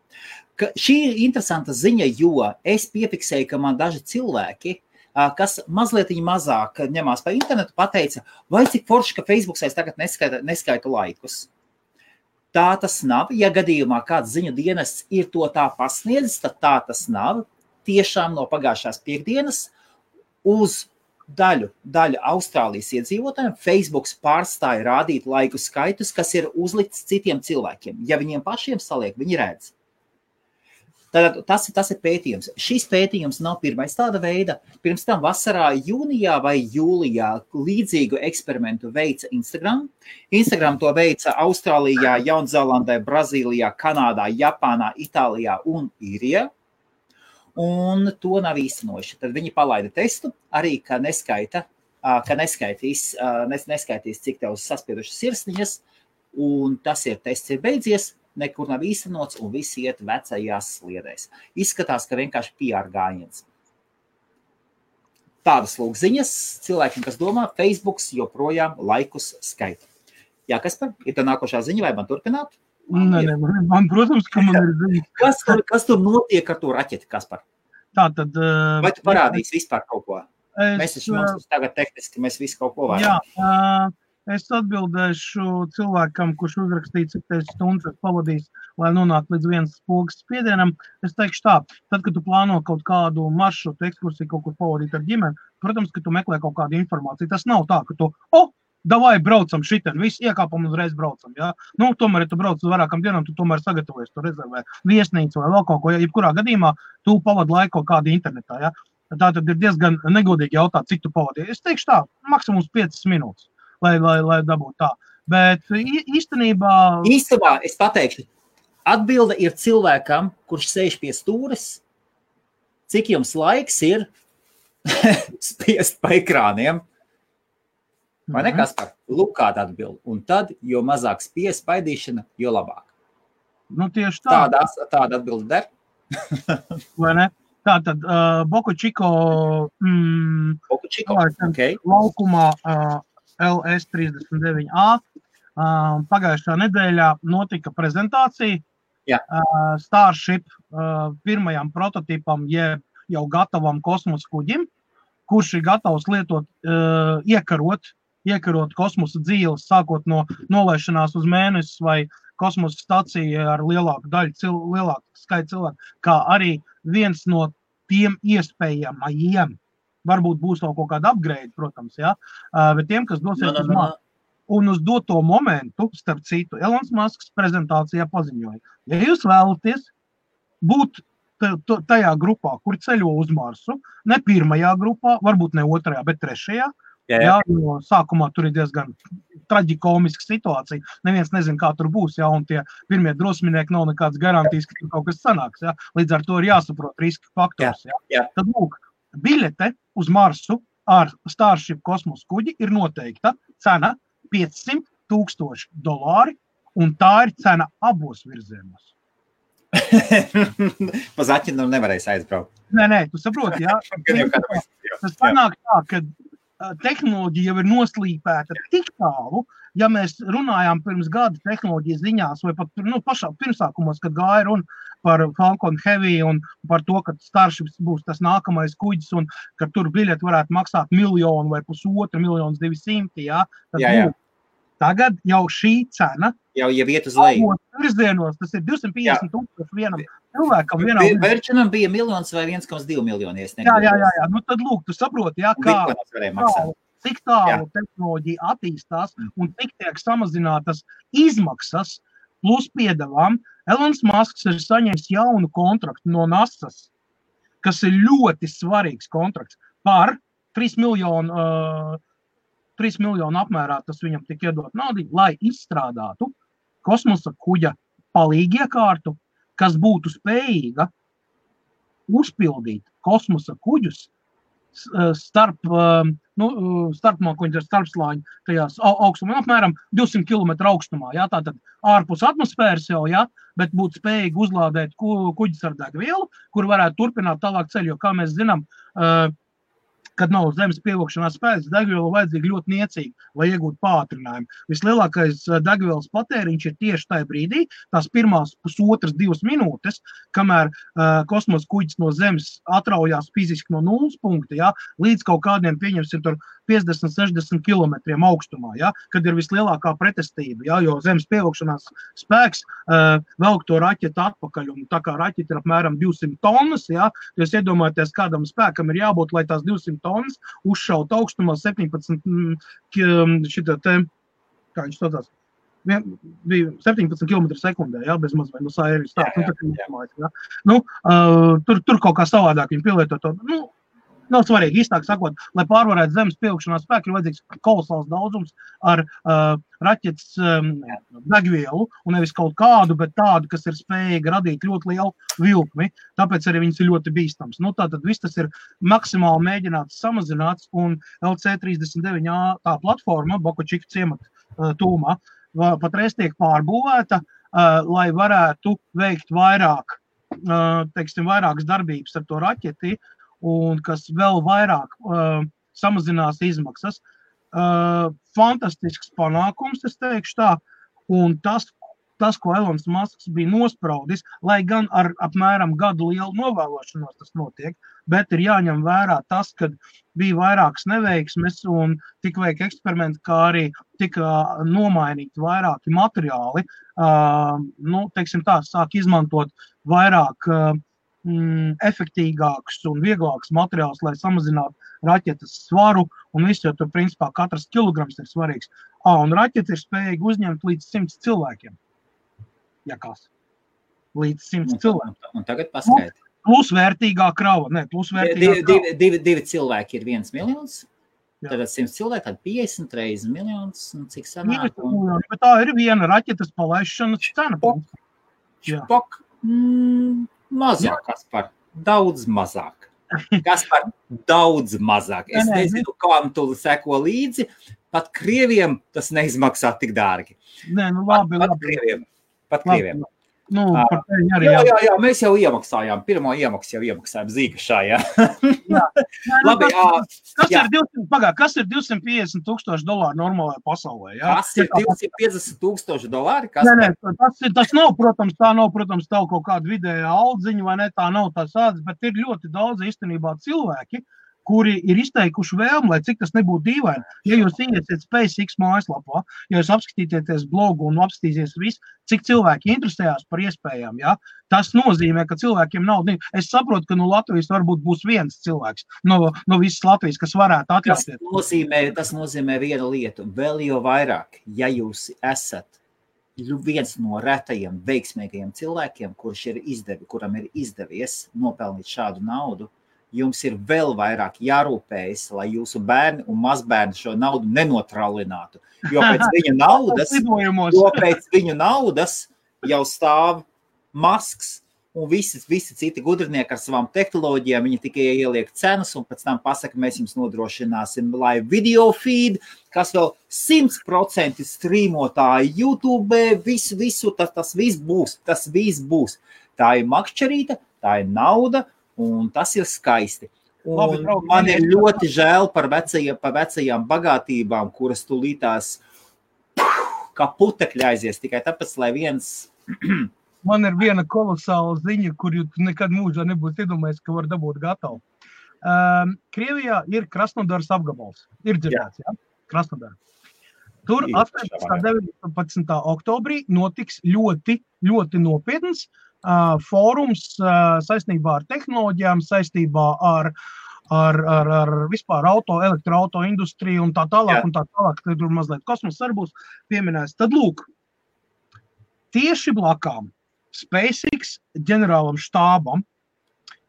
Šī ir interesanta ziņa, jo es piefiksēju, ka man daži cilvēki, kas mazliet mazāk ņemās pa internetu, pateica, vai cik forši, ka Facebooks tagad neskaitu laikus. Tā tas nav. Ja gadījumā kāds ziņu dienests ir to tā pasniedzis, tad tā tas nav. Tiešām no pagājušās piekdienas uz daļu Austrālijas iedzīvotājiem Facebooks pārstāja rādīt laiku skaitus, kas ir uzlikts citiem cilvēkiem. Ja viņiem pašiem saliek, viņi redz. Tātad tas ir pētījums. Šis pētījums nav pirmais tāda veida. Pirms tam vasarā, jūnijā vai jūlijā līdzīgu eksperimentu veica Instagram. Instagram to veica Austrālijā, Jaunzēlandē, Brazīlijā, Kanādā, Japānā, Itālijā un Īrijā. Un to nav īstenojuši. Tad viņi palaida testu, arī, ka neskaitīs, cik tev saspiedušas sirsniņas, un tas tests ir beidzies, nekur nav īstenots, un visi iet vecajās sliedēs. Izskatās, ka vienkārši PR gājiens. Tādas lūk ziņas cilvēkiem, kas domā, Facebooks joprojām laikus skaita. Jā, Kaspar, ir tā nākošā ziņa, vai man turpināt? Nē, man, protams, ka man ir ziņas. Kas tur notiek ar to raķeti, Kaspar? Tātad... Vai tu parādīsi vispār kaut ko? Mēs tagad tehniski, mēs visi kaut ko varam. Jā, es atbildēšu cilvēkam, kurš uzrakstīja, cik teiks stundas pavadīs, lai nonāktu līdz vienas pogas spiedienam. Es teikšu tā, tad, kad tu plāno kaut kādu maršrutu, ekskursiju, kaut kur pavadīt ar ģimeni, protams, ka tu meklē kaut kādu informāciju. Tas nav tā, ka tu, davai braucam šitien, visi iekāpam un uzreiz braucam, jā. Nu, tomēr, ja tu brauc uz vairākam dienām, tu tomēr sagatavojies, tu rezervē viesnīcu vai vēl kaut ko, ja jebkurā gadījumā tu pavadi laiku kaut kādu internetā, jā. Tā tad ir diezgan negodīgi jautāt, cik tu pavadīji. Es teikšu tā, maksimums 5 minūtes, lai dabūtu tā. Bet īstenībā, es pateikšu, atbilde ir cilvēkam, kurš sēž pie stūres, cik jums laiks ir spiest pa ekrāniem. Vai ne, Kaspar? Lūk, kāda atbilde. Un tad, jo mazāk spies paidīšana, jo labāk. Nu, tieši tā. Tāda atbilde der. Vai ne? Tātad, Boku Čiko okay. Laukumā LS39A pagājušā nedēļā notika prezentācija Starship pirmajam prototipam, jeb jau gatavam kosmosa kuģim, kurš ir gatavs lietot, iekarot kosmosa dzīves, sākot no nolaišanās uz mēnesi vai kosmosa staciju ar lielāku skaitu cilvēku, kā arī viens no tiem iespējamajiem. Varbūt būs vēl kaut kāda upgrade, protams, jā, bet tiem, kas dosies uz Marsu. Un uz doto momentu, starp citu, Elons Musks prezentācijā paziņoja, ja jūs vēlaties būt tajā grupā, kur ceļo uz Marsu, ne pirmajā grupā, varbūt ne otrajā, bet trešajā. Jā, jo sākumā tur ir diezgan traģikomiska situācija. Neviens nezin, kā tur būs, jā, un tie pirmie drosminieki nav nekāds garantijas, ka tur kaut kas sanāks, jā. Līdz ar to ir jāsaprot riska faktors, jā. Tad, lūk, biļete uz Marsu ar Starship kosmosa kuģi ir noteikta cena $500,000, un tā ir cena abos virzienos. Pa Zaķinu nevarēs aizbraukt. Nē, tu saproti, jā. Tas panāk tā, ka tehnoloģija jau ir noslīpēta tik tālu, ja mēs runājām pirms gada tehnoloģijas ziņās, vai pat pašā pirmsākumos, kad gāja runa par Falcon Heavy un par to, ka Starship būs tas nākamais kuģis un ka tur biļeti varētu maksāt 1 miljonu vai 1,5 miljonus 200, jā. Jā. Tagad jau šī cena jau iet uz leju. Virzienos, tas ir 250,000 vienam cilvēkam. Virčinam bija 1 miljons vai 1,2 miljoni. Jā. Nu tad lūk, tu saproti, jā, cik tālu tehnoloģija attīstās un cik tiek samazinātas izmaksas plus piedevām. Elons Musks ir saņēmis jaunu kontraktu no NASA's, kas ir ļoti svarīgs kontrakts par 3 miljonu apmērā, tas viņam tik iedot naudu, lai izstrādātu kosmosa kuģa palīgiekārtu, kas būtu spējīga uzpildīt kosmosa kuģus starpslāņu tajās augstumā, apmēram 200 km augstumā, jā, tātad ārpus atmosfēras jau, jā, bet būtu spējīgi uzlādēt kuģis ar degvielu, kur varētu turpināt tālāk ceļu, jo, kā mēs zinām, kad nav zemes pievilkšanās spēks, degviela vajadzīga ļoti niecīgi, lai iegūtu pātrinājumu. Vislielākais degvielas patēriņš ir tieši tajā brīdī, tās pirmās 1,5–2 minūtes, kamēr kosmosa kuģis no zemes atraujās fiziski no nulles punkta, jā, līdz kaut kādiem, pieņemsim, tur 50-60 kilometriem augstumā, ja, kad ir vislielākā pretestība, ja, jo zemes pievilkšanās spēks velk to raķetu atpakaļ, un tā kā raķeta ir apmēram 200 tonnas, ja, jūs iedomājaties, kādam spēkam ir jābūt, lai tās 200 tonnas uzšaut augstumā 17 šitā te, kā viņš saucās, bija 17 km sekundē, ja, bez maz vai no sāieris tā, ja. Tur kaut kā savādāk viņi pielieto to, nav svarīgi, īstāk sakot, lai pārvarētu zemes pievilkšanās spēku, ir vajadzīgs kolosāls daudzums ar raķetes degvielu, un nevis kaut kādu, bet tādu, kas ir spējīga radīt ļoti lielu vilkmi, tāpēc arī viņas ir ļoti bīstams. Tātad viss tas ir maksimāli mēģināts samazināts, un LC-39A tā platforma, Bokočika ciemata tūmā, patreiz tiek pārbūvēta, lai varētu veikt vairākas darbības ar to raķeti, un kas vēl vairāk samazinās izmaksas. Fantastisks panākums, es teikšu tā, un tas, ko Elons Musks bija nospraudis, lai gan ar apmēram gadu lielu novēlošanos tas notiek, bet ir jāņem vērā tas, ka bija vairākas neveiksmes un tika veikti eksperimenti, kā arī tika nomainīti vairāki materiāli. Teiksim tā, sāk izmantot vairāk efektīgāks un vieglāks materiāls, lai samazinātu raķetes svaru, un viss jau tur, principā, katrs kilograms ir svarīgs. Un raķete ir spējīga uzņemt līdz 100 cilvēkiem. Ja kas? Līdz 100 cilvēkiem. Un tagad paskaidri. Plusvērtīgā krava. Divi cilvēki ir 1 miljons. Tad 100 cilvēki, tad 50 reizes miljons, un cik sanāk? Bet tā ir viena raķetes palaišanas cena. Špok. Mazāk, Kaspar, daudz mazāk. Kaspar, daudz mazāk. Es nezinu, kam tu seko līdzi, pat Krieviem tas neizmaksā tik dārgi. Pat Krieviem. Jā, mēs jau iemaksājām, pirmo iemaksu jau iemaksājām Zīgašā, jā. Labi, kas ir $250,000 normālajā pasaulē, jā? Kas ir $250,000? Tas nav, protams, tā kaut kāda vidējā aldziņa, vai ne, tā nav tā sāds, bet ir ļoti daudz īstenībā cilvēki, kuri ir izteikuši vēlmi, lai cik tas nebūtu dīvaini. Ja jūs iesiet SpaceX mājaslapā, ja jūs apskatīties blogu un apskatīsies visu, cik cilvēki interesējās par iespējām, ja, tas nozīmē, ka cilvēkiem nav. Es saprotu, ka no Latvijas varbūt būs viens cilvēks, no visas Latvijas, kas varētu atļauties. Tas nozīmē vienu lietu, vēl jau vairāk, ja jūs esat viens no retajiem veiksmīgajiem cilvēkiem, kuram ir izdevies nopelnīt šādu naudu, jums ir vēl vairāk jārūpējas, lai jūsu bērni un mazbērni šo naudu nenotralinātu. Jo pēc viņu naudas jau stāv Musks un visi citi gudrinieki ar savām tehnoloģijām. Viņi tikai ieliek cenas un pēc tam pasaka, mēs jums nodrošināsim live video feed, kas vēl 100% strīmotāji YouTube, visu, tas viss būs. Tā ir makšķerīta, tā ir nauda, un tas ir skaisti. Un man ir ļoti žēl par vecajām bagātībām, kuras tūlītās kā putekļi aizies, tikai tāpēc, lai viens... Man ir viena kolosāla ziņa, kur jūs nekad mūžā nebūs iedomājies, ka var dabūt gatavu. Krievijā ir Krasnodaras apgabals. Ir dzirdēts, jā? Krasnodara. Tur 18. 19. oktobrī notiks ļoti, ļoti nopietns fórums saistībā ar tehnoloģijām, saistībā ar vispār elektroauto industriju un tā tālāk, tur mazliet kosmos arī būs pieminēts. Tad lūk, tieši blakām SpaceX ģenerālam štābam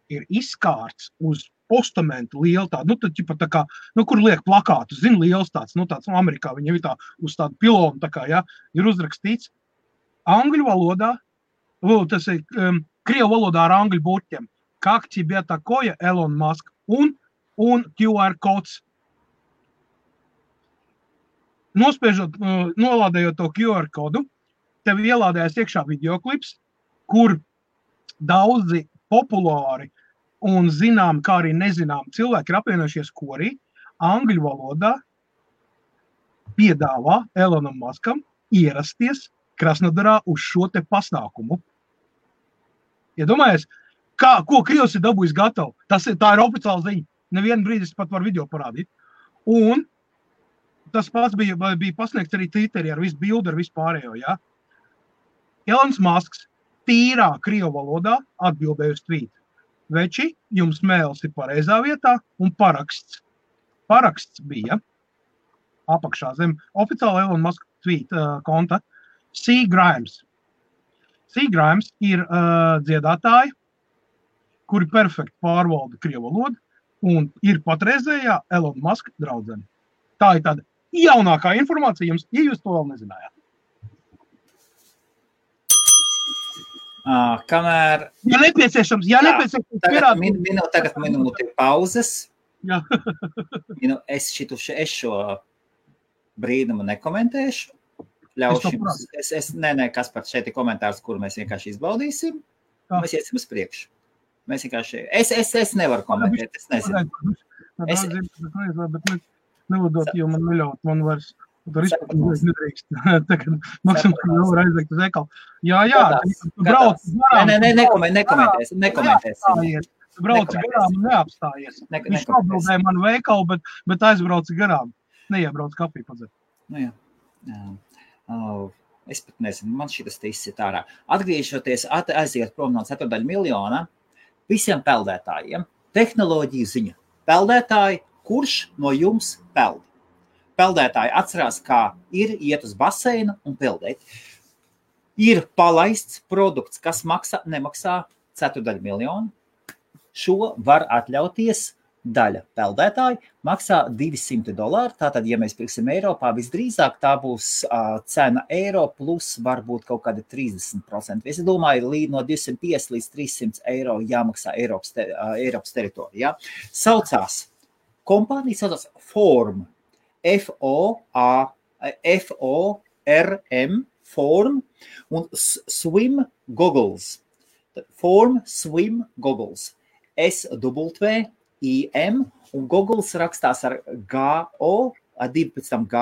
ir izkārts uz postamentu lielu tādu, tā kā, kur liek plakātu, liels tāds, tāds Amerikā, viņam ir tā uz tādu pilonu, tā kā, ja, ir uzrakstīts angļu valodā, tas ir krievu valodā ar angļu burtiem, как тебе такое, Elon Musk, un QR kods. Nolādējot to QR kodu, tev ielādējas iekšā videoklips, kur daudzi populāri un zinām, kā arī nezinām cilvēki ir apvienojušies korī, angļu valodā piedāvā Elonam Muskam ierasties Krasnodarā uz šo te pasākumu. Iedomājies, ko Krievs ir dabūjis gatavu? Tā ir oficiāla ziņa. Nevienu brīdi es pat varu video parādīt. Un tas pats bija pasniegts arī Twitterī ar visu bildi, ar visu pārējo, ja? Elons Musks tīrā krievu valodā atbildēja uz tweet. Veči, jums mēls ir pareizā vietā un paraksts. Paraksts bija apakšā zem oficiāla Elon Musk tweet konta C. Grimes. C. Grimes ir dziedātāji, kuri perfekti pārvalda krievu valodu un ir patreizējā Elon Musk draudzene. Tā ir tāda jaunākā informācija jums, ja jūs to vēl nezinājāt. Kamēr... Ja nepieciešams Tagad minūte pauzes. Jā. Es šo brīnumu nekomentēšu. Ļaušu jums. Kaspar, šeit ir komentārs, kuru mēs vienkārši izbaudīsim. Mēs iesim uz priekšu. Mēs vienkārši... Es nevaru komentēt, es nezinu. Bet nevodot, jo man neļaut, man vairs... Tur izpēc nedrīkst. Tagad maksimums jau var aizveikt uz ekalu. Jā, brauc garām. Nekomentēsim. Brauc garām un neapstājies. Viņš atbildēja manu veikalu, bet aizbrauc garām. Neiebrauc kafiju padzert. Nu jā. Es pat nezinu, man šitas te izsit ārā. Atgriežoties, aiziet prom no 4 miljona visiem peldētājiem. Tehnoloģiju ziņa. Peldētāji, kurš no jums peld? Peldētāji atcerās, kā ir iet uz baseinu un peldēt. Ir palaists produkts, kas nemaksā 4 miljonu. Šo var atļauties daļa peldētāji, maksā $200. Tātad, ja mēs pirksim Eiropā, visdrīzāk tā būs cena eiro plus varbūt kaut kāda 30%. Es domāju, no 250 līdz 300 eiro jāmaksā Eiropas teritorijā. Kompānija saucās Form. F-O-R-M, Form, un Swim Goggles. Form Swim Goggles. S-W-I-M, un Goggles rakstās ar G-O, ar 12 G,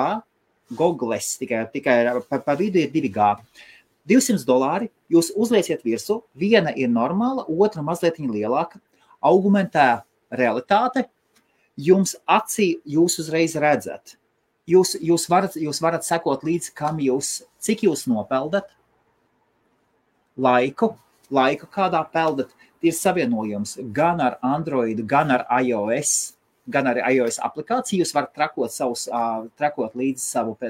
Goggles, tikai pa vidu ir 2 G. $200 jūs uzlieciet virsū, viena ir normāla, otra mazliet lielāka, augmentē realitāte. Jums acī jūs uzreiz redzat. Jūs varat sekot līdzi, cik jūs nopeldat, laiku kādā peldat. Ir savienojums gan ar Android, gan ar iOS aplikāciju. Jūs varat trakot līdzi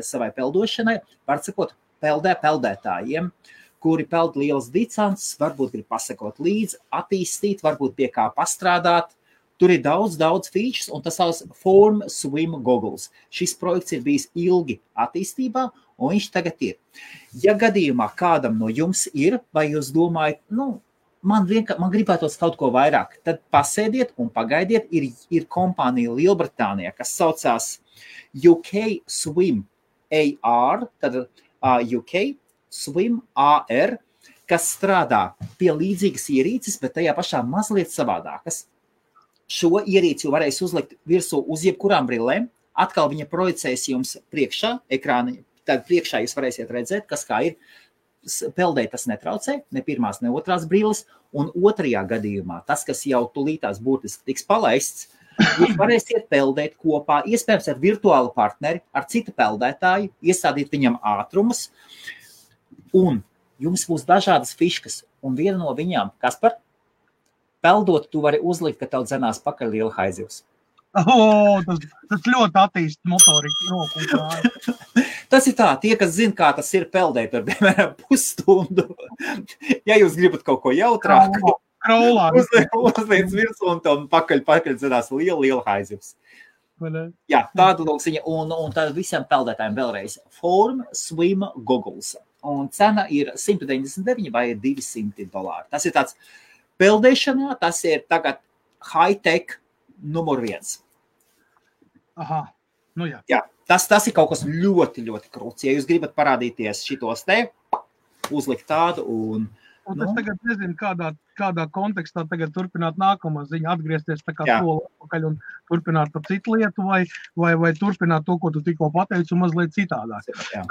savai peldošanai. Varat sekot peldētājiem, kuri peld lielas distances, varbūt grib pasakot līdzi, attīstīt, varbūt pie kā pastrādāt. Tur ir daudz features, un tas sauc Form Swim Goggles. Šis projekts ir bijis ilgi attīstībā, un viņš tagad ir. Ja gadījumā kādam no jums ir, vai jūs domājat, man gribētos kaut ko vairāk, tad pasēdiet un pagaidiet. Ir kompānija Lielbritānijā, kas saucās UK Swim AR, tad UK Swim AR, kas strādā pie līdzīgas ierīces, bet tajā pašā mazliet savādākas. Šo ierīci varēs uzlikt virsū uz jebkurām brillēm. Atkal viņa projicēs jums priekšā, ekrāni. Tad priekšā jūs varēsiet redzēt, kas kā ir. Peldēt tas netraucē, ne pirmās, ne otrās brilles. Un otrajā gadījumā, tas, kas jau tulītās būtiski tiks palaists, jūs varēsiet peldēt kopā, iespējams ar virtuālu partneri, ar citu peldētāju, iestādīt viņam ātrumus. Un jums būs dažādas fiškas. Un viena no viņām, Kaspar, peldot, tu vari uzlikt, ka tev dzenās pakaļ liela haizivs. Tas ļoti attīst motoriku roku un kāju. Tas ir tā, tie, kas zina, kā tas ir peldēt ar, piemēram, pusstundu. Ja jūs gribat kaut ko jautrāku, uzliec virsū un tev pakaļ dzenās liela haizivs. Jā, tāda lūksiņa. Un tad visiem peldētājiem vēlreiz Form Swim Goggles. Un cena ir $199 vai $200. Tas ir tāds peldēšanā, tas ir tagad high-tech numur 1. Aha, jā. Jā, tas ir kaut kas ļoti, ļoti krūts. Ja jūs gribat parādīties šitos te, uzlikt tādu un... Es tagad nezinu, kādā kontekstā tagad turpināt nākamā ziņa, atgriezties tā kā soli atpakaļ un turpināt par citu lietu vai turpināt to, ko tu tikko pateici un mazliet citādāk. Jā.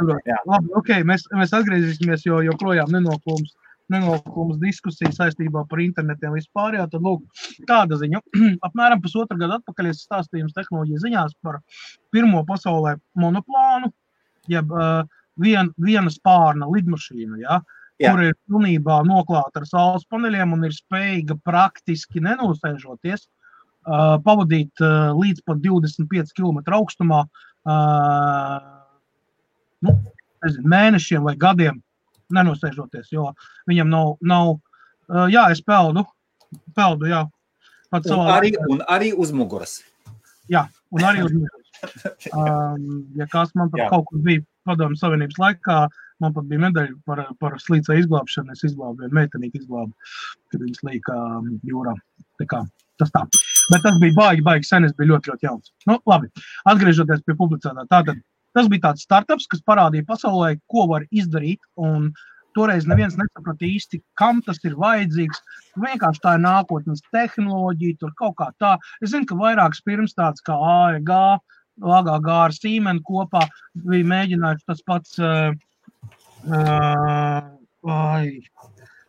Labi, mēs atgriezīsimies, jo joprojām nenoklūms nenoklumas diskusija saistībā par internetiem vispār, jā, tad lūk, tāda ziņa. Apmēram pusotru gadu atpakaļ es stāstīju tehnoloģiju ziņās par pirmo pasaulē monoplānu, jeb viena spārna lidmašīna, ja, kur ir pilnībā noklāta ar saules paneļiem un ir spējīga praktiski nenosēžoties, pavadīt līdz pat 25 km augstumā, mēnešiem vai gadiem nenosēžoties, jo viņam nav jā, es peldu, jā. Un arī uz muguras. Jā, un arī uz muguras. Ja kāds man pat kaut kur bija Padomju Savienības laikā, man pat bija medaļa par slīcē izglābšanu, es izglābu vienu meitenīti izglābu, kad viņas līka jūrā. Tā kā, tas tā. Bet tas bija baigi sen, es biju ļoti jauns. Nu, labi, atgriežoties pie publicētā. Tātad, tas bija tāds startups, kas parādīja pasaulē, ko var izdarīt, un toreiz neviens nesaprata īsti, kam tas ir vajadzīgs. Vienkārši tā ir nākotnes tehnoloģija, tur kaut kā tā. Es zinu, ka vairākas pirms tāds kā AEG, AGG ar Siemens kopā bija mēģinājuši tas pats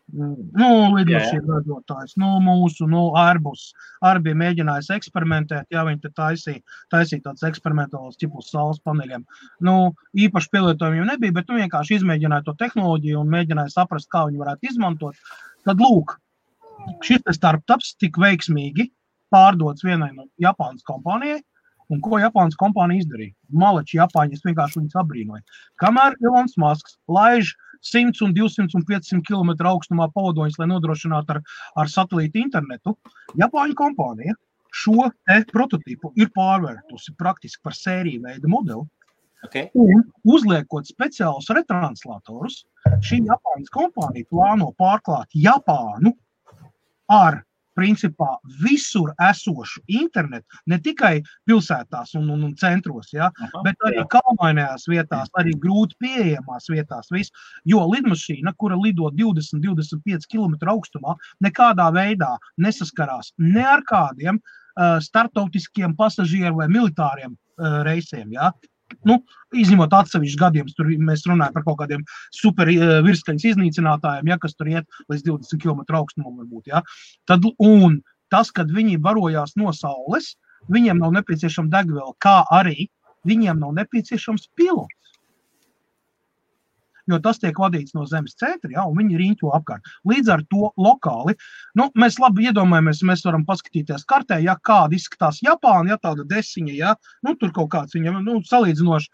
lidmašīnu ražotājs, mūsu, Airbus arī bija mēģinājis eksperimentēt, ja viņi te taisīja tāds eksperimentāls tipus saules paneļiem. Īpaši pielietojumiem nebija, bet vienkārši izmēģināja to tehnoloģiju un mēģināja saprast, kā viņi varētu izmantot. Tad lūk, šis startups tik veiksmīgi pārdots vienai no Japānas kompānijai, un ko Japānas kompānija izdarīja? Malači Japāņi, es vienkārši viņus abrīnoju. Kamēr Elons Musks laiž 100 un 200 un 500 km augstumā pavadoņus, lai nodrošinātu ar satelītu internetu, Japāņu kompānija šo prototipu ir pārvērtusi praktiski par sēriju veida modeli, un uzliekot speciālus retranslatorus, šī Japāņas kompānija plāno pārklāt Japānu ar principā visur esošu internetu, ne tikai pilsētās un centros, ja, bet arī kalnainajās vietās, arī grūti pieejamās vietās, jo lidmašīna, kura lido 20-25 km augstumā, nekādā veidā nesaskarās ne ar kādiem startautiskiem pasažieru vai militāriem reisiem, ja. Izņemot atsevišķus gadījumus, tur mēs runājam par kaut kādiem super virskaņas iznīcinātājiem, ja, kas tur iet līdz 20 km augstumam varbūt, ja. Un tas, kad viņi barojās no saules, viņiem nav nepieciešama degviela, kā arī viņiem nav nepieciešams pilots. Jo tas tiek vadīts no zemes centra, ja, un viņi riņķo apkārt. Līdz ar to lokāli, mēs labi iedomājamies, mēs varam paskatīties kartē, ja kāda izskatās Japāna, ja tāda desiņa, ja, tur kaut kāds viņam, salīdzinoši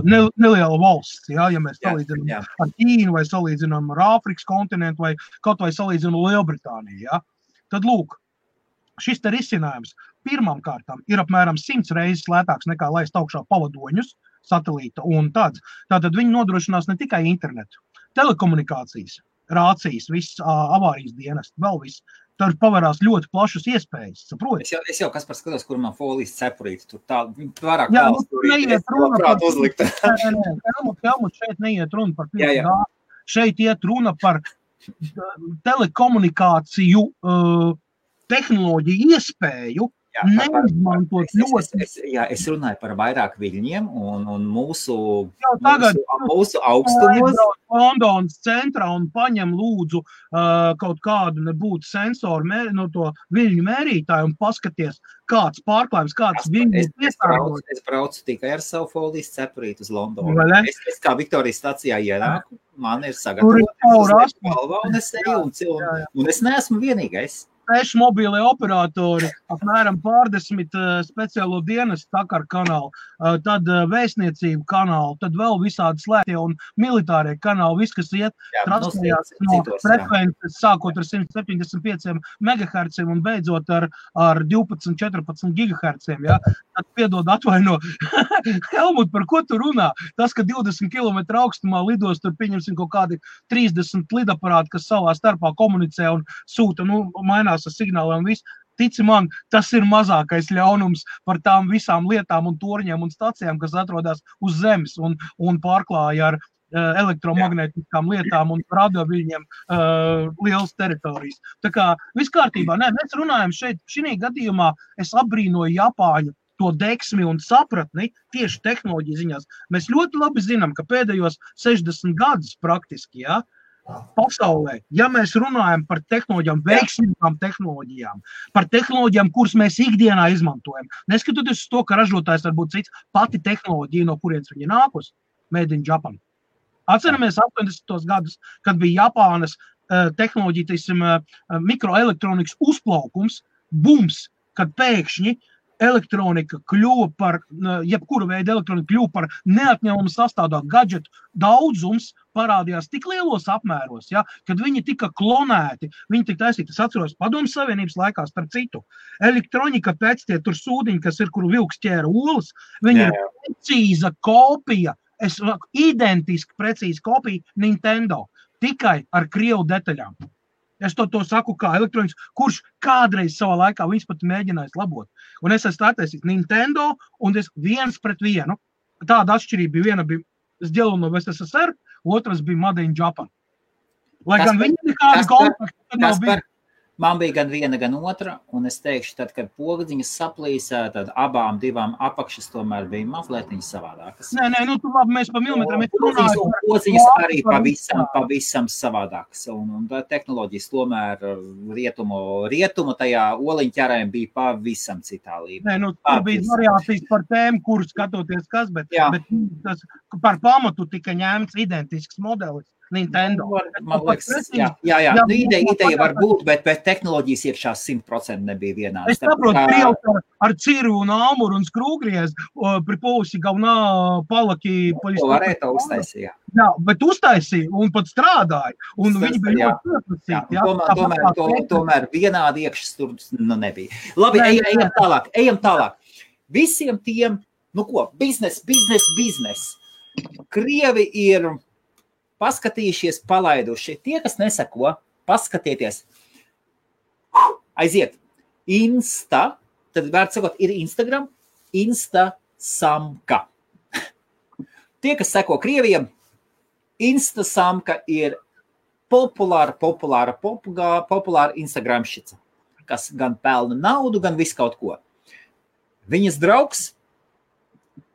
neliela valsts, ja mēs salīdzinām ar Ķīnu vai salīdzinām ar Āfrikas kontinentu vai kaut vai salīdzinām Lielbritāniju, ja. Tad lūk, šis te risinājums pirmām kārtām ir apmēram 100 reizes lētāks nekā laist augšā pavadoņus, satelīta un tāds. Tātad viņi nodrošinās ne tikai internetu, telekomunikācijas, rācijas, viss avārijas dienas, vēl viss. Tur pavarās ļoti plašas iespējas, saproti? Es jau kas par skatos, kur man folijas cepurīti, tur tā, vairāk neiet runa par uzlikt. Helmut, šeit neiet runa par 5G, šeit iet runa par telekomunikāciju tehnoloģiju iespēju, neizmantot ļoti. Es runāju par vairāk viļņiem un mūsu augstumos. Londonas centrā un paņem lūdzu kaut kādu nebūtu sensoru no to viļņu mērītāju un paskaties, kāds pārklājums, kāds viļņu piesārņojums. Es braucu tikai ar savu folijas cepurīti uz Londonu. Es kā Viktorijas stacijā ienāku, man ir sagatavots galvā un es eju, un es neesmu vienīgais. 6 mobīlie operatori, apmēram pārdesmit speciālo dienestu Takar kanālu, tad vēstniecību kanālu, tad vēl visādi slēgtie un militārie kanāli, viss, kas iet transferējās no frekvences, sākot ar 175 MHz un beidzot ar 12-14 GHz. Ja? Tad piedod atvaino, Helmut, par ko tu runā? Tas, ka 20 km augstumā lidos, tur pieņemsim kaut kādi 30 lidaparāti, kas savā starpā komunicē un sūta, mainās ar signāliem un viss. Tici man, tas ir mazākais ļaunums par tām visām lietām un torņiem un stacijām, kas atrodas uz zemes un pārklāja ar elektromagnētiskām lietām un radioviļņiem lielas teritorijas. Tā kā viss kārtībā. Mēs runājam šeit, šī gadījumā es abrīnoju Japāņu to deksmi un sapratni tieši tehnoloģiju ziņās. Mēs ļoti labi zinām, ka pēdējos 60 gadus praktiski, ja, pasaulē, ja mēs runājam par tehnoloģijām, veiksmīgām tehnoloģijām, par tehnoloģijām, kuras mēs ikdienā izmantojam, neskatoties uz to, ka ražotājs var būt cits, pati tehnoloģija, no kurienes viņa nākus, made in Japan. Atceramies 80. gadus, kad bija Japānas tehnoloģija, teiksim, mikroelektronikas uzplaukums, bums, kad pēkšņi elektronika kļuva par, jebkura veida elektronika kļuva par neatņemamu sastāvdaļu, gadžetu daudzums parādījās tik lielos apmēros, ja, kad viņi tika klonēti, viņi tika taisīti, es atceros Padomju Savienības laikā, starp citu, elektronika pēc tie tur sūdiņi, kas ir, kuru vilks ķēra olas, viņi ir precīza kopija, identiski precīza kopija Nintendo, tikai ar krievu detaļām. Es to saku kā elektronikas, kurš kādreiz savā laikā viņas pat mēģinājis labot. Un es esmu attaisījis Nintendo, un es 1-1. Tāda atšķirība bija, viena bija сделана в СССР, otras bija Made in Japan. Lai gan viņi nekādi kontakti nav bija. Man bija gan viena, gan otra, un es teikšu, tad, kad pogdziņas saplīsē, tad abām divām apakšas tomēr bija mazlietiņas savādākas. Nē, nu tu labi, mēs pa milimetram runājam. Pogdziņas arī pavisam savādākas, un tehnoloģijas tomēr rietumu tajā oliņķerēm bija pavisam citā līmenī. Nē, nu tur bija variācijas par tēmu, kuru skatoties kas, bet tas par pamatu tika ņēmts identisks modelis. Nintendo. Man liekas, jā. Nu, ideja var būt, bet tehnoloģijas iekšā 100% nebija vienādas. Es saprotu, Krievs ar ciru un āmuru un skrūgriez, pri pousi galvenā palaki... To varēja to uztaisīt, Jā, bet uztaisīja un pat strādāja. Un viņi bija ļoti pieprasīti. Tomēr vienādi iekšas tur nebija. Labi, ejam tālāk. Visiem tiem, nu ko, biznes. Krievi ir... paskatījušies, palaiduši. Tie, kas nesako, paskatieties. Aiziet. Insta, tad vērts sakot, ir Instagram, Instasamka. Tie, kas sako Krievijam, Instasamka ir populāra Instagramšica, kas gan pelna naudu, gan visu kaut ko. Viņas draugs,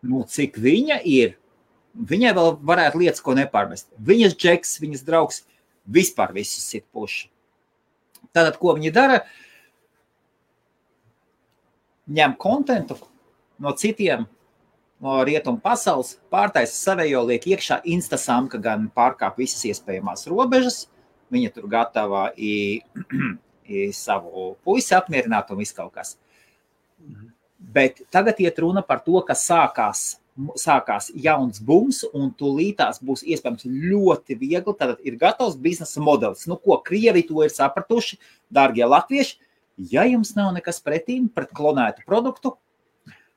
nu cik viņa ir, viņai vēl varētu lietas, ko nepārmest. Viņas džeks, viņas draugs, vispār visus sit puši. Tātad, ko viņi dara? Ņem kontentu no citiem, no rietumu pasaules, pārtaisa savējo, liek iekšā Instasamka, gan pārkāp visas iespējamās robežas. Viņa tur gatava savu puisi apmierināt un viss kaut kas. Bet tagad iet runa par to, ka sākās jauns bums, un tūlītās būs iespējams ļoti viegli, tad ir gatavs biznesa modelis. Nu, ko Krievi to ir sapratuši, dārgie latvieši, ja jums nav nekas pretīm pret klonētu produktu,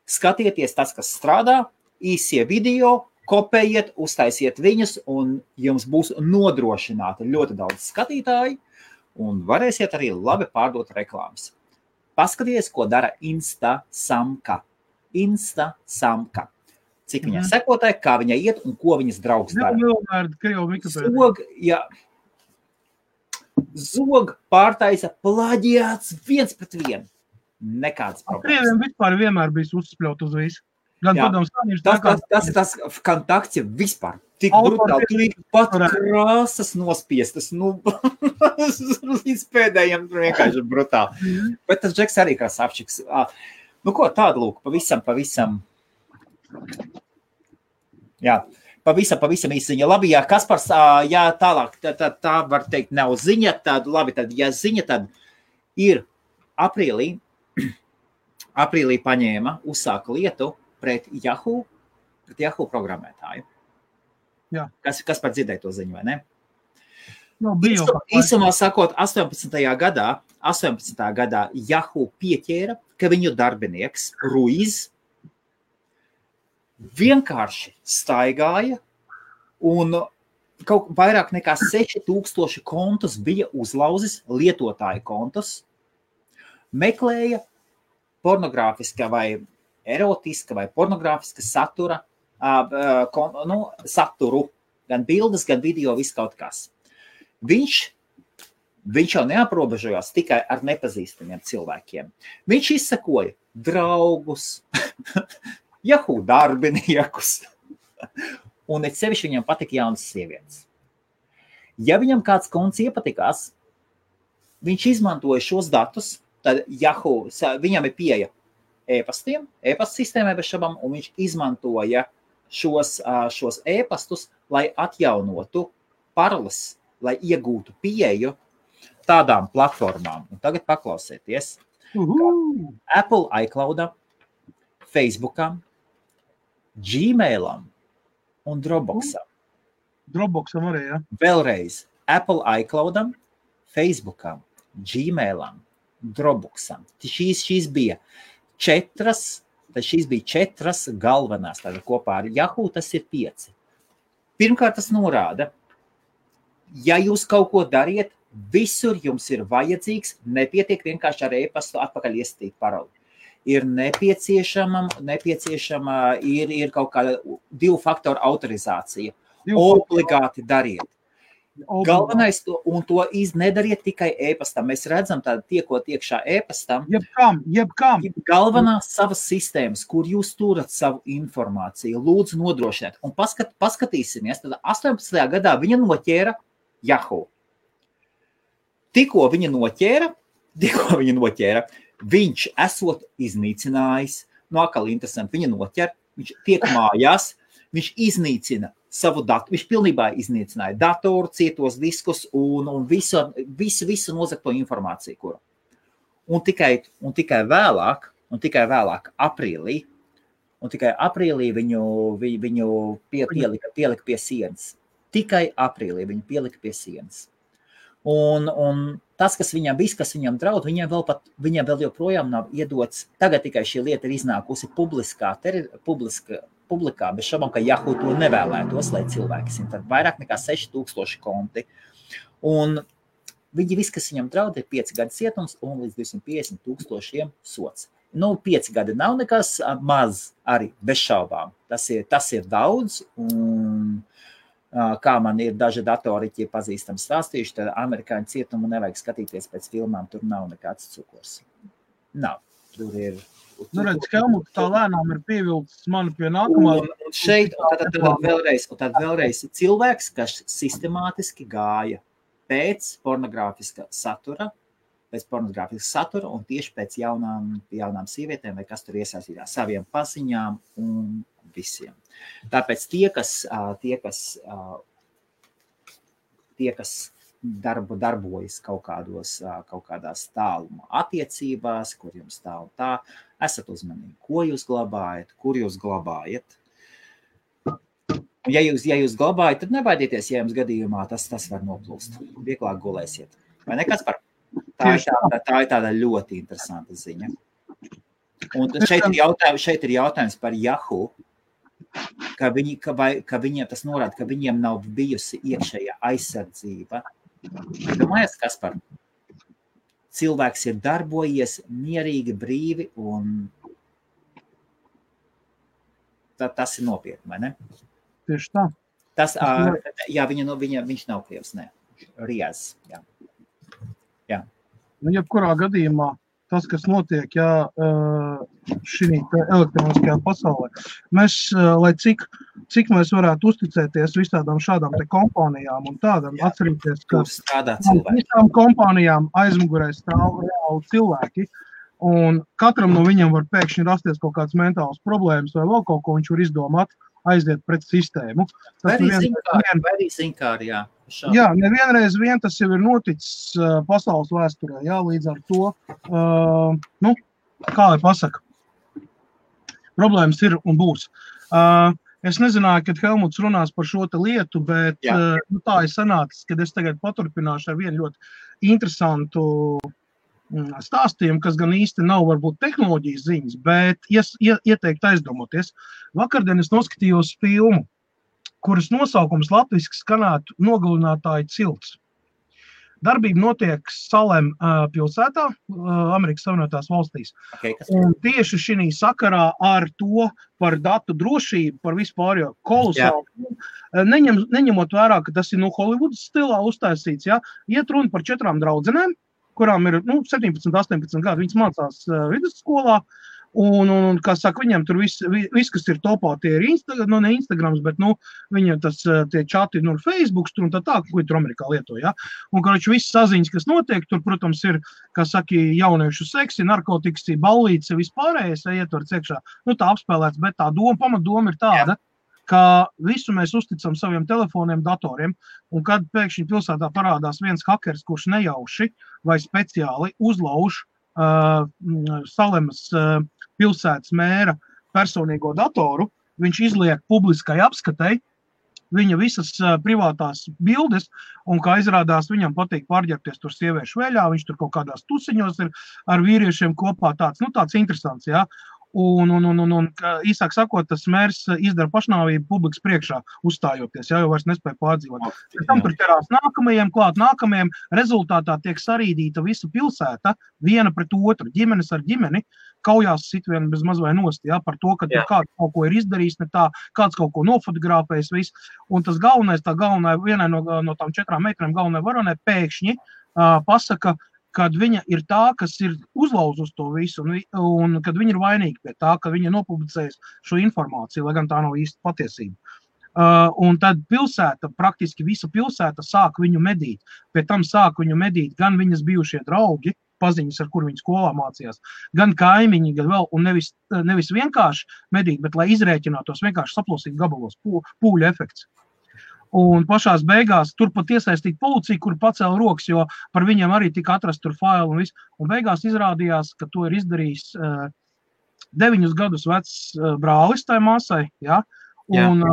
skatieties tas, kas strādā, īsie video, kopējiet, uztaisiet viņus, un jums būs nodrošināti ļoti daudz skatītāji, un varēsiet arī labi pārdot reklāmas. Paskaties, ko dara Instasamka. Cik viņai sekotāji, kā viņai iet un ko viņas draugs dara. Zog pārtaisa plaģiāts 1-1. Nekāds problēmas. Krieviem vispār vienmēr bijis uzspļaut uz visu. Gan tas ir tas kontakts vispār. Tik brutāli, tur ir pat krāsas nospiestas. Nu, līdz pēdējiem tur vienkārši brutāli. Bet tas džeks arī kā sapčiks. Nu ko, tādu lūk, pavisam. Jā, pavisam īsiņa. Labi, jā, Kaspars, jā, tālāk, tā var teikt, nav ziņa, tad labi, tad, ja ziņa, tad ir aprīlī paņēma, uzsāka lietu pret Yahoo programmētāju. Jā. Kas par dzirdēja to ziņu, vai ne? No, Īsumā sakot, 18. gadā Yahoo pieķēra, ka viņu darbinieks Ruiz vienkārši staigāja un kaut vairāk nekā 6000 kontus bija uzlauzis, lietotāju kontus, meklēja pornogrāfiska vai erotiska vai pornogrāfiska saturu, gan bildes, gan video, viss kaut kas. Viņš jau neaprobežojās tikai ar nepazīstamiem cilvēkiem. Viņš izsakoja draugus, Yahoo darbiniekus, un sevišķi viņam patika jaunas sievietes. Ja viņam kāds konts iepatikās, viņš izmantoja šos datus, tad Yahoo, viņam ir pieeja e-pastiem, e-pasta sistēmai bez šabām, un viņš izmantoja šos e-pastus, lai atjaunotu paroles, lai iegūtu pieeju tādām platformām. Un tagad paklausieties. Apple iCloudam, Facebookam, Gmailam un Dropboxam. Dropboxam arī, ja? Vēlreiz. Apple iCloudam, Facebookam, Gmailam, Dropboxam. Šīs bija četras galvenās. Tātad kopā ar Yahoo tas ir 5. Pirmkārt, tas norāda, ja jūs kaut ko dariet, visur jums ir vajadzīgs, nepietiek vienkārši ar e-pastu atpakaļ iestīt paroli. Ir nepieciešama ir kaut kāda 2 faktoru autorizācija. Obligāti dariet. Galvenais, un to nedariet tikai e-pastam. Mēs redzam tādu tiekot iekšā e-pastam. Jebkam. Galvenās savas sistēmas, kur jūs turat savu informāciju, lūdzu nodrošiniet. Un paskatīsimies, tad 18. gadā viņa noķēra Yahoo. Tikko viņa noķēra, viņš esot iznīcinājis, atkal interesanti, viņa noķer, viņš tiek mājās, viņš iznīcina savu datu, viņš pilnībā iznīcināja datoru, cietos diskus un visu nozagto informāciju, kuru. Un tikai vēlāk aprīlī viņu pielika pie sienas. Tikai aprīlī viņu pielika pie sienas. Un tas, kas viņam draud, viņam vēl joprojām nav iedots. Tagad tikai šī lieta ir iznākusi publikā, bez šaubām, ka Yahoo to nevēlētos, lai cilvēki zina. Tad vairāk nekā 6000 konti. Un viņi viss, kas viņam draud, ir 5 gadu cietums un līdz 250,000 sots. 5 gadi nav nekas maz arī, bez šaubām. Tas ir daudz, un kā man ir daži datoriķi pazīstami stāstījuši, tad amerikāņu cietumu nevajag skatīties pēc filmām, tur nav nekāds cukurs. Nav. Tur ir... redz, Helmut, tā lēnām ir pievilcis mani pie nākamā. Un šeit, tad vēlreiz cilvēks, kas sistemātiski gāja pēc pornogrāfiska satura, un tieši pēc jaunām sievietēm, vai kas tur iesaistītās saviem paziņām un visiem. Tāpēc tie, kas darbojas kaut kādās tāluma attiecībās, kur jums tā un tā, esat uzmanīgi, ko jūs glabājat, kur jūs glabājat. Ja jūs glabājat, tad nebaidieties, ja jums gadījumā tas var noplūst. Vieglāk gulēsiet. Vai ne, Kaspar? Tā ir tāda ļoti interesanta ziņa. Un šeit ir jautājums par Yahoo, ka viņiem tas norāda, ka viņiem nav bijusi iekšējā aizsardzība. Domājies, Kaspar? Cilvēks ir darbojies mierīgi, brīvi, un tas ir nopietni, vai ne? Tieši tā. Viņš nav krievs, ne. Riez, jā. Jebkurā gadījumā tas, kas notiek šī elektroniskajā pasaulē, mēs, lai cik mēs varētu uzticēties visādām šādām te kompānijām un tādām, atcerīties, ka visām kompānijām aizmugurē stāv reāli cilvēki, un katram no viņiem var pēkšņi rasties kaut kāds mentāls problēmas vai vēl kaut ko viņš var izdomāt, aiziet pret sistēmu. Vai arī zinkāri, jā. Jā, nevienreiz tas jau ir noticis pasaules vēsturē, jā, līdz ar to, kā lai pasaka, problēmas ir un būs. Es nezināju, kad Helmuts runās par šo te lietu, bet tā ir sanācis, kad es tagad paturpināšu ar vienu ļoti interesantu stāstījumu, kas gan īsti nav varbūt tehnoloģijas ziņas, bet ieteikt aizdomoties. Vakardien es noskatījos filmu, kuras nosaukums latviski skanētu Nogalinātāju cilts. Darbība notiek Salem pilsētā, Amerikas Savienotās valstīs. Un tieši šī sakarā ar to par datu drošību, par vispār jau kolosāli, neņemot vērā, ka tas ir Hollywoods stilā uztaisīts, iet runa par 4 draudzenēm, kurām ir 17, 18 gadi, viņas mācās vidusskolā, Un kā saka, viņiem tur viss, kas ir topā, tie ir ne Instagrams, bet, viņiem tas tie čati, Facebooks tur un tā, ko tur Amerikā lieto, ja. Un, karoči, viss saziņas, kas notiek, tur, protams, ir, kā saka, jauniešu seksi, narkotikas, ballītes, vispārējais, ietverts iekšā. Tā apspēlēts, bet tā pamatdoma ir tāda, ka visu mēs uzticam saviem telefoniem, datoriem, un kad pēkšņi pilsētā parādās viens hakers, kurš nejauši vai speciāli uzlauž Salemas pilsētas mēra personīgo datoru, viņš izliek publiskai apskatei viņa visas privātās bildes, un kā izrādās, viņam patīk pārģerties tur sieviešu veļā, viņš tur kaut kādās tusiņos ir ar vīriešiem kopā tāds interesants, jā. Un īsāk sakot, tas mērs izdara pašnāvību publikas priekšā uzstājoties, jau vairs nespēja pārdzīvot. Tam tur ķerās nākamajiem, rezultātā tiek sarīdīta visa pilsēta, viena pret otru, ģimenes ar ģimeni, kaujās sit viena bez mazvai nost, ja, par to, ka tur kāds kaut ko ir izdarījis, ne tā, kāds kaut ko nofotografējis, viss. Un tas galvenā, vienai no tām 4 meitenēm galvenai varonai pēkšņi pasaka, kad viņa ir tā, kas ir uzlauzus to visu, un kad viņa ir vainīga pie tā, ka viņa nopublicējas šo informāciju, lai gan tā nav īsti patiesība. Un tad praktiski visa pilsēta sāk viņu medīt. Pie tam sāk viņu medīt gan viņas bijušie draugi, paziņas, ar kur viņi skolā mācījās, gan kaimiņi, gan vēl, un nevis vienkārši medīt, bet lai izrēķinātos vienkārši saplosīt gabalos, pūļu efekts. Un pašās beigās tur pat iesaistīt policiju, kur pacēla rokas, jo par viņiem arī tika atrast tur faili un viss. Un beigās izrādījās, ka to ir izdarījis 9 gadus vecs brālis tai māsai, ja? Un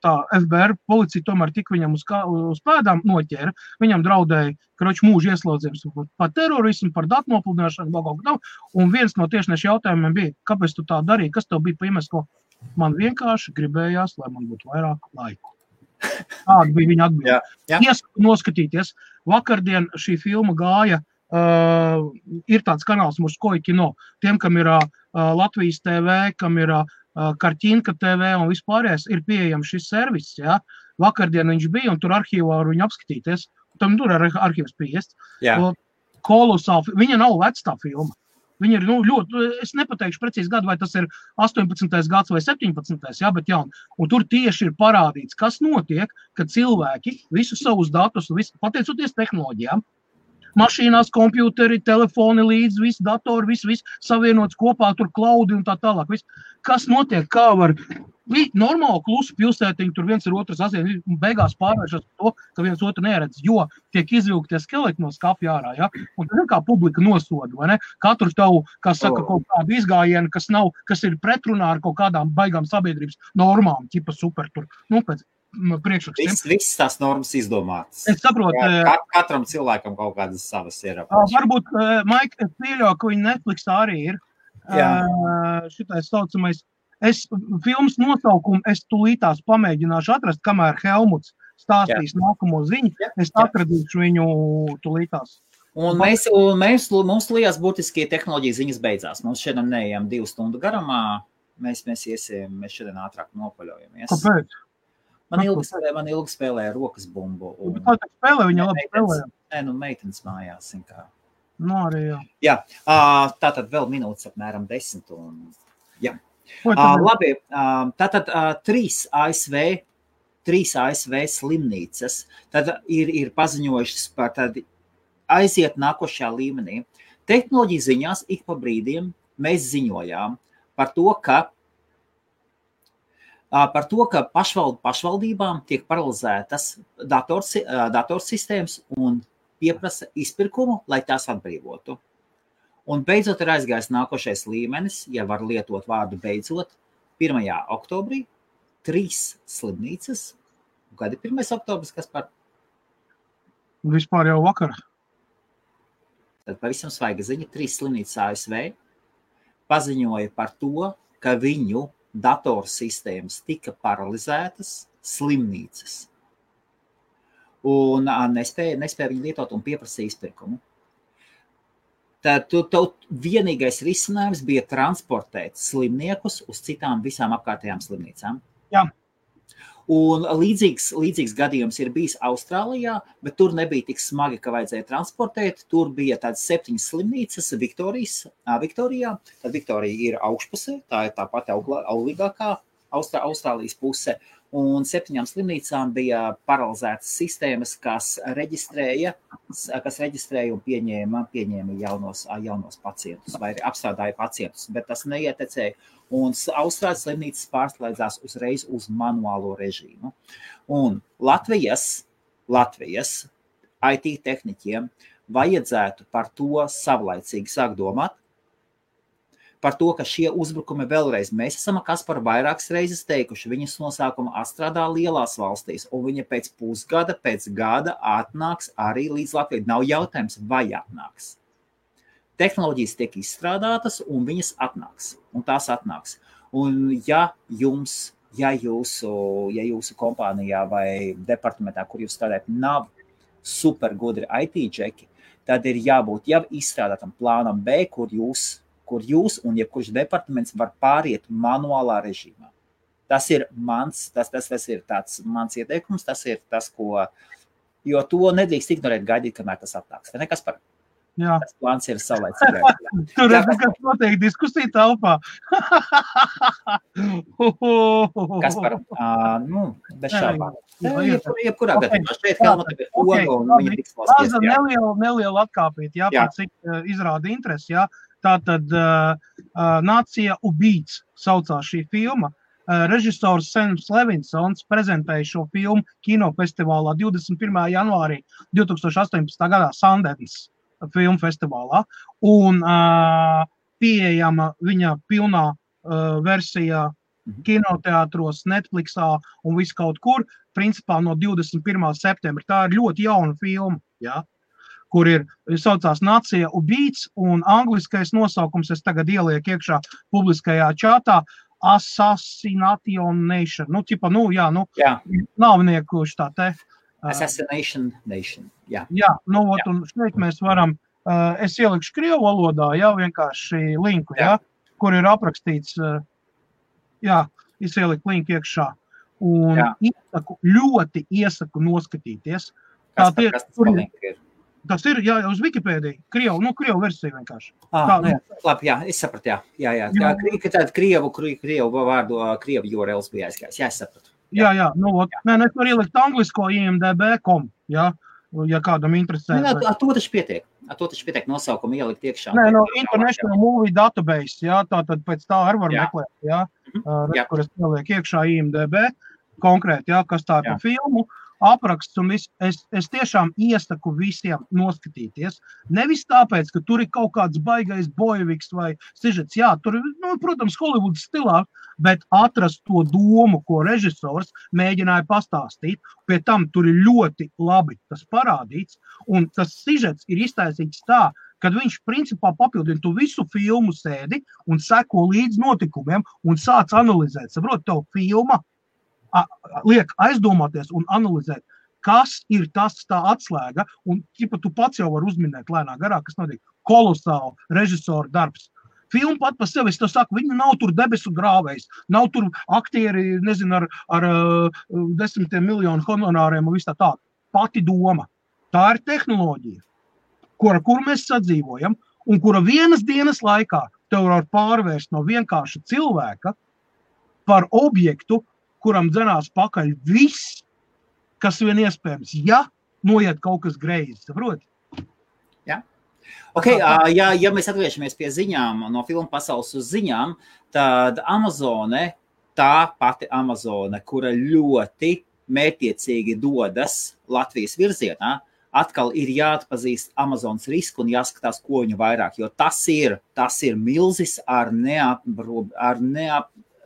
tā FBI policija tomēr tik viņam uz pēdām noķēra. Viņam draudēja, karoči, mūža ieslodzījums par terorismu, par datu nopludināšanu, un viens no tiešniešu jautājumiem bija, kāpēc tu tā darīji, kas tev bija pa iemeslu? Man vienkārši gribējās, lai man būtu vairāk laiku. Tāda bija viņa atbilde. Iesaku noskatīties. Vakardien šī filma gāja, ir tāds kanāls Murskoja kino. Tiem, kam ir Latvijas TV, kam ir Karķinka TV un vispārējais, ir pieejams šis servis. Ja? Vakardien viņš bija un tur arhīvā var viņu apskatīties. Tam tur ir arhīvs pieiest. Kolosāli. Viņa nav vecā filma. Viņa ir ļoti, es nepateikšu precīzi gadu, vai tas ir 18. gads vai 17. Jā, bet jauni. Un tur tieši ir parādīts, kas notiek, kad cilvēki visus savus datus, pateicoties tehnoloģijām, mašīnās, kompjuteri, telefoni līdz, viss datori, viss savienots kopā, tur klaudi un tā tālāk. Kas notiek, kā var normāli klusu pilsētiņu, tur viens ir otrs asien, un beigās pārvēršas to, ka viens otru neredz, jo tiek izvilktie skeleti no skapja ārā, ja? Un tad kā publika nosoda, vai ne? Katru tavu, kas saka, kaut kādu izgājienu, kas ir pretrunā ar kaut kādām baigām sabiedrības normām, ķipa super tur, pēc priekšrakstiem. Viss tās normas izdomātas. Es saprotu. Katram cilvēkam kaut kādas savas ir. Varbūt, Maik, es pieļauju, ka viņi Netflixā arī ir. Šitais saucamais. Filmas nosaukumu es tūlītās pamēģināšu atrast, kamēr Helmuts stāstīs nākamo ziņu. Es atradīšu viņu tūlītās. Un mums liekas būtiskie tehnoloģija ziņas beidzās. Mums šodien neejam 2 stundu garumā. Mēs šodien ātrāk nopaļojamies. Kāpēc? Man ilgi spēlēja rokas bumbu. Kāda spēlē? Viņa labi spēlēja? Nē, meitenes mājās. Arī jā. Jā, tātad vēl minūtes apmēram 10. Jā. Labi, tātad 3 ASV slimnīcas tad ir paziņojušas par tad aiziet nākošajā līmenī. Tehnoloģija ziņās ik pa brīdiem mēs ziņojām par to, ka pašvaldībām tiek paralizētas datorsistēmas un pieprasa izpirkumu, lai tās atbrīvotu. Un beidzot ir aizgājis nākošais līmenis, ja var lietot vārdu beidzot, 1. oktobrī 3 slimnīcas. Kad ir 1. oktobris, kas par? Vispār jau vakar. Tad pavisam svaiga ziņa, 3 slimnīcas ASV paziņoja par to, ka viņu datorsistēmas tika paralizētas slimnīcas. Un nespēja viņu lietot un pieprasīja izpirkumu. Tad vienīgais risinājums bija transportēt slimniekus uz citām visām apkārtējām slimnīcām. Jā. Un līdzīgs gadījums ir bijis Austrālijā, bet tur nebija tik smagi, ka vajadzēja transportēt. Tur bija tādas 7 slimnīcas Viktorijā. Tad Viktorija ir augšpusē, tā ir tā pati auglīgākā Austrālijas puse. Un 7 slimnīcām bija paralizētas sistēmas, kas reģistrēja un pieņēma jaunos pacientus vai apstrādāja pacientus, bet tas neietekmēja. Un Austrālijas slimnīcas pārslēdzās uzreiz uz manuālo režīmu. Un Latvijas IT tehniķiem vajadzētu par to savlaicīgi sākt domāt, par to, ka šie uzbrukumi vēlreiz mēs esam Kasparu vairākas reizes teikuši, viņas nosākuma atstrādā lielās valstīs, un viņa pēc pusgada, pēc gada atnāks arī līdz Latvijai. Nav jautājums, vai atnāks. Tehnoloģijas tiek izstrādātas, un viņas atnāks, un tās atnāks. Un ja jūsu kompānijā vai departamentā, kur jūs strādājat, nav super gudri IT džeki, tad ir jābūt jau izstrādātam plānam B, kur jūs un jebkurš departaments var pāriet manuālā režīmā. Tas ir mans ieteikums, tas ir tas, jo to nedrīkst ignorēt, gaidīt, kamēr tas atnāks. Nekas par. Jā. Tas plāns ir savlaicīgi. Tur ir kas notiek diskusija telpā. Kas par, bez šaubām. Jebkurā gadījumā šeit Helmuta ir oga un viņa tiks valsties. Neliela atkāpīt, par cik izrāda interesi, Tātad Nācija ubīts saucās šī filma. Režisors Sams Levinsons prezentēja šo filmu kinofestivālā 21. janvārī 2018. gadā Sundance filmu festivālā. Un pieejama viņa pilnā versijā kinoteātros, Netflixā un viss kaut kur, principā no 21. septembra. Tā ir ļoti jauna filma, kur saucās Nācija ubīts, un angliskais nosaukums es tagad ielieku iekšā publiskajā čātā Assassination Nation. Nāvnieku tā te. Assassination Nation, jā. Un šeit mēs varam, es ielikšu krievu valodā, vienkārši linku, kur ir aprakstīts, es ieliku linku iekšā. Un ļoti iesaku noskatīties. Kas tas ir? Tas ir, uz Wikipēdiju, krievu versiju vienkārši. Labi, es sapratu, Tātad krievu vārdu, krievu URLs bija aizgājis, es sapratu. Es varu ielikt anglisko IMDb.com, ja kādam interesē. To taču pietiek nosaukumu ielikt iekšā. International Movie Database, tātad pēc tā arī var meklēt, kur es ielieku iekšā IMDb, konkrēti, kas tā ir par filmu. Apraksts un viss, es tiešām iesaku visiem noskatīties. Nevis tāpēc, ka tur ir kaut kāds baigais bojeviks vai sižets. Tur ir, protams, Hollywoods stilā, bet atrast to domu, ko režisors mēģināja pastāstīt. Pie tam tur ir ļoti labi tas parādīts, un tas sižets ir iztaisīts tā, kad viņš principā papildina tu visu filmu sēdi un seko līdz notikumiem un sāc analizēt. Saprot, tev filma liek aizdomāties un analizēt, kas ir tas tā atslēga, un tu pats jau var uzminēt lēnā garā, kas notiek kolosāli režisora darbs. Filma pat pa sevi, es to saku, viņa nav tur debesu grāvējs, nav tur aktieri, ar 10 miljonu honorāriem un viss tā. Pati doma. Tā ir tehnoloģija, kur mēs sadzīvojam, un kura vienas dienas laikā tev var pārvērst no vienkārša cilvēka par objektu, kuram dzenās pakaļ viss, kas vien iespējams, noiet kaut kas greizi, saproti? Ja mēs atgriežamies pie ziņām, no filmu pasaules uz ziņām, tad Amazone, tā pati Amazone, kura ļoti mērķiecīgi dodas Latvijas virzienā, atkal ir jāatpazīst Amazonas risku un jāskatās, ko viņu vairāk, jo tas ir milzis ar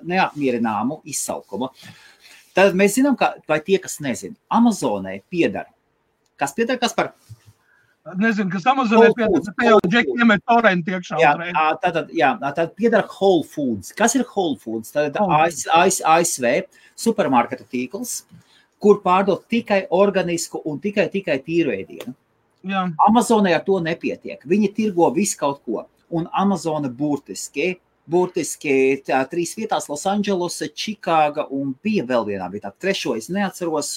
neapmierināmu izsaukumu. Tad mēs zinām, vai tie, kas nezina, Amazonai piedara. Kas piedara, kas par? Nezinu, kas Amazonai piedara, te jau džeki iemet torrenti iekšā. Tad piedara Whole Foods. Kas ir Whole Foods? Tad ASV supermarketu tīkls, kur pārdod tikai organisku un tikai tīru ēdienu. Amazonai ar to nepietiek. Viņi tirgo visu kaut ko. Un Amazona burtiski burtiski 3 vietās, Losandželose, Čikāga un bija vēl vienā vietā. 3. es neatceros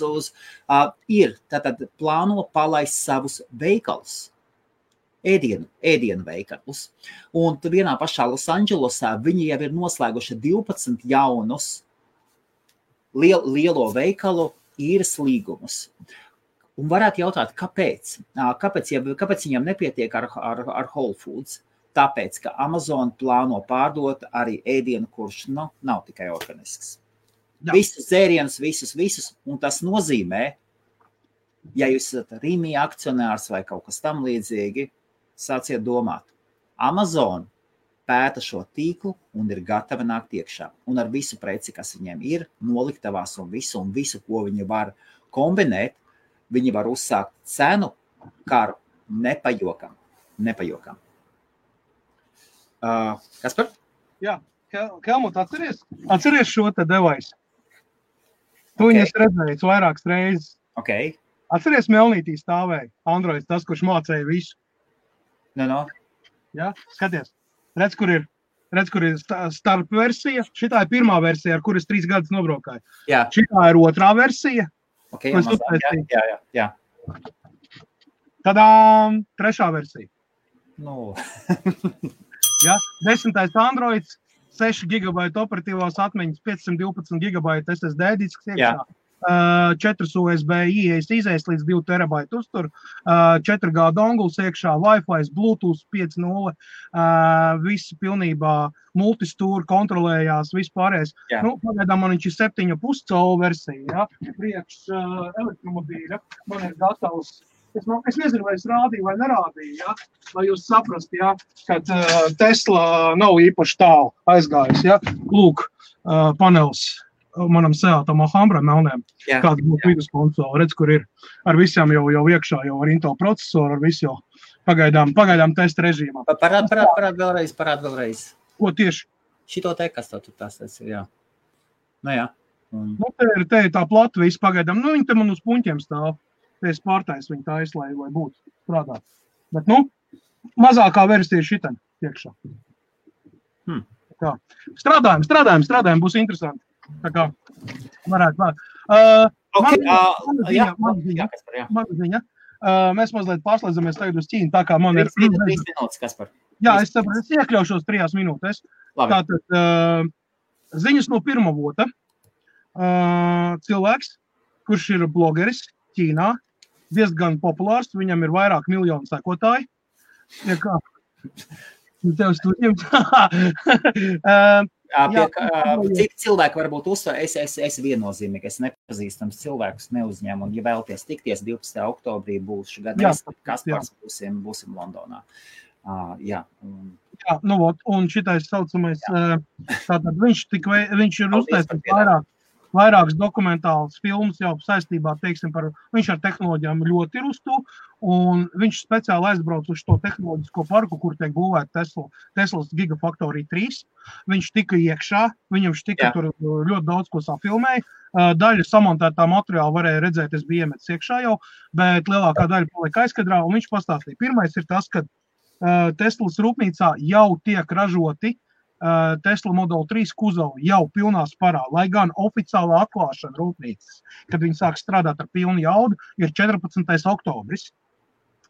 ir, tātad plāno palaist savus veikalus. Ēdienu veikalus. Un vienā pašā Losandželosā viņi jau ir noslēguši 12 jaunus lielo veikalu īres līgumus. Un varētu jautāt, kāpēc? Kāpēc viņam nepietiek ar Whole Foods? Tāpēc, ka Amazon plāno pārdot arī ēdienu, kurš nav tikai organisks. Jā. Visus dzērienus, visus, un tas nozīmē, ja jūs esat Rīmī akcionārs vai kaut kas tam līdzīgi, sāciet domāt. Amazon pēta šo tīklu un ir gatava nākt iekšā. Un ar visu preci, kas viņiem ir, noliktavās un visu, ko viņi var kombinēt, viņi var uzsākt cenu karu nepajokam. Kaspar? Jā, Helmut, atceries šo te devaisu? Tu viņas redzējis vairākas reizes. Okay. Atceries Melnītī stāvēja Androids, tas, kurš mācēja visu. No. Jā, skaties. Redz, kur ir starp versija. Šitā ir pirmā versija, ar kuras 3 gadus nobraukāju. Jā. Šitā ir otrā versija. Okay, jā. Tadā 3. versija. No. Ja, 10. Androids, 6 GB operatīvās atmiņas, 512 GB SSD disks iekšā, 4 USB izējas līdz 2 TB uztur, 4G donguls iekšā, Wi-Fi, Bluetooth 5.0, visi pilnībā multistūri kontrolējās, vispārējais. Pagaidām man viņš ir 7,5 colu versija, priekš elektromobīļa, man ir gatavs. Es nezinu, vai es rādīju vai nerādīju, lai jūs saprast, kad Tesla nav īpaši tālu aizgājis. Lūk, panels manam Seatam Alhambra melnēm, kāda būtu viduskonsola. Redz, kur ir ar visām jau iekšā, jau ar Intel procesoru, ar visu jau pagaidām testa režīmā. Parād vēlreiz. Ko tieši? Šito te, kas tur tās ir, jā. Jā. Te ir tā plata visu pagaidām. Viņi te man uz puņķiem stāv. Es pārtais viņu tais, lai būtu strādāt. Bet, mazākā versija šitam iekšā. Strādājam, būs interesanti. Tā kā varētu. Man ziņa. Mēs mazliet pārslēdzamies tagad uz Ķīnu, tā kā man ir... 3 minūtes, Kaspar. Jā, es iekļaušos 3 minūtēs. Tātad ziņas no pirmavota. Cilvēks, kurš ir blogeris Ķīnā, diezgan populārs, viņam ir vairāk miljonu sekotāji. Cik cilvēki varbūt uzsver, es viennozīmīgi, es nepazīstams cilvēkus neuzņēmu, un ja vēlaties tikties 12. oktobrī būšu gadījums, Kaspars būsim Londonā. Jā, un šitais saucamais, tātad viņš ir uztaisījis vairākas dokumentālas filmas jau saistībā, viņš ar tehnoloģijām ļoti ir uz to, un viņš speciāli aizbrauc uz to tehnoloģisko parku, kur tiek būvēta Teslas Gigafactory 3. Viņš tika iekšā, viņam tur ļoti daudz ko safilmēja. Daļa samontētā materiāla varēja redzēt, es biju iemetis iekšā jau, bet lielākā daļa palika aizkadrā, un viņš pastāstīja. Pirmais ir tas, ka Teslas rūpnīcā jau tiek ražoti Tesla Model 3 kuzavu jau pilnā sparā, lai gan oficiālā atklāšana rūpnīcas, kad viņi sāk strādāt ar pilnu jaudu, ir 14. oktobris.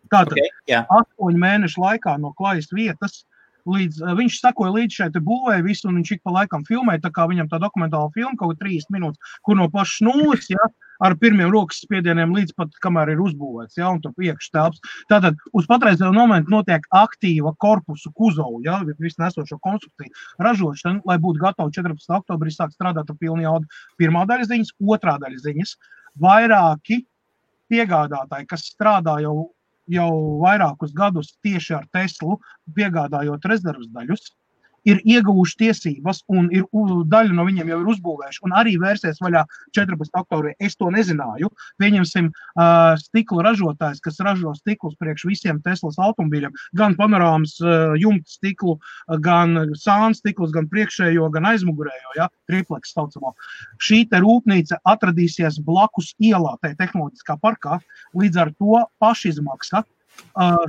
Tātad 8 mēnešu laikā no klajas vietas, viņš sakoja līdz šeit būvēja visu, un viņš ik pa laikam filmēja, tā kā viņam tā dokumentāla filma, kaut 30 minūtes, kur no pašas nulles, ar pirmiem rokas spiedieniem līdz pat, kamēr ir uzbūvēts, un tur iekšā telpas. Tātad uz patreizējo momentu notiek aktīva korpusu kuzavu, visu nesošo konstrukciju ražošana, lai būtu gatavi 14. oktobrī sāk strādāt ar pilnu jaudu. Pirmā daļa ziņas, otrā daļa ziņas. Vairāki piegādātāji, kas strādā jau vairākus gadus tieši ar Teslu, piegādājot rezervas daļus, ir ieguvuši tiesības un daļu no viņiem jau ir uzbūvējuši un arī vērsies vaļā 14. oktobrī. Es to nezināju. Pieņemsim stikla ražotājs, kas ražo stiklus priekš visiem Teslas automobīļiem, gan panorāmas jumta stiklu, gan sāna stiklus, gan priekšējo, gan aizmugurējo, triplex saucamo. Šī te rūpnīca atradīsies blakus ielā, tai tehnoloģiskā parkā, līdz ar to pašizmaksa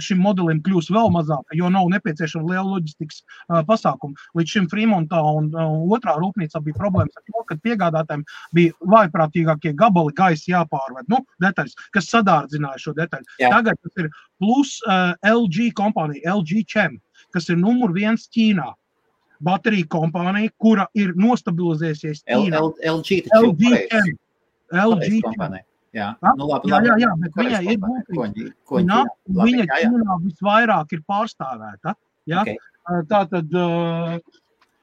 šim modelim kļūs vēl mazāk, jo nav nepieciešama liela loģistikas pasākuma. Līdz šim Fremontā un otrā rūpnīcā bija problēmas ar to, ka piegādātājiem bija vājprātīgākie gabali gaisa jāpārved, detaļas, kas sadārdzināja šo detaļu. Jā. Tagad tas ir plus LG kompānija, LG Chem, kas ir numur 1 Ķīnā. Baterija kompānija, kura ir nostabilizējusies Ķīnā. LG kompānija. Jā, jā, bet viņai ir būtības. Viņa Ķīnā visvairāk ir pārstāvēta. Ja? Okay. Tātad,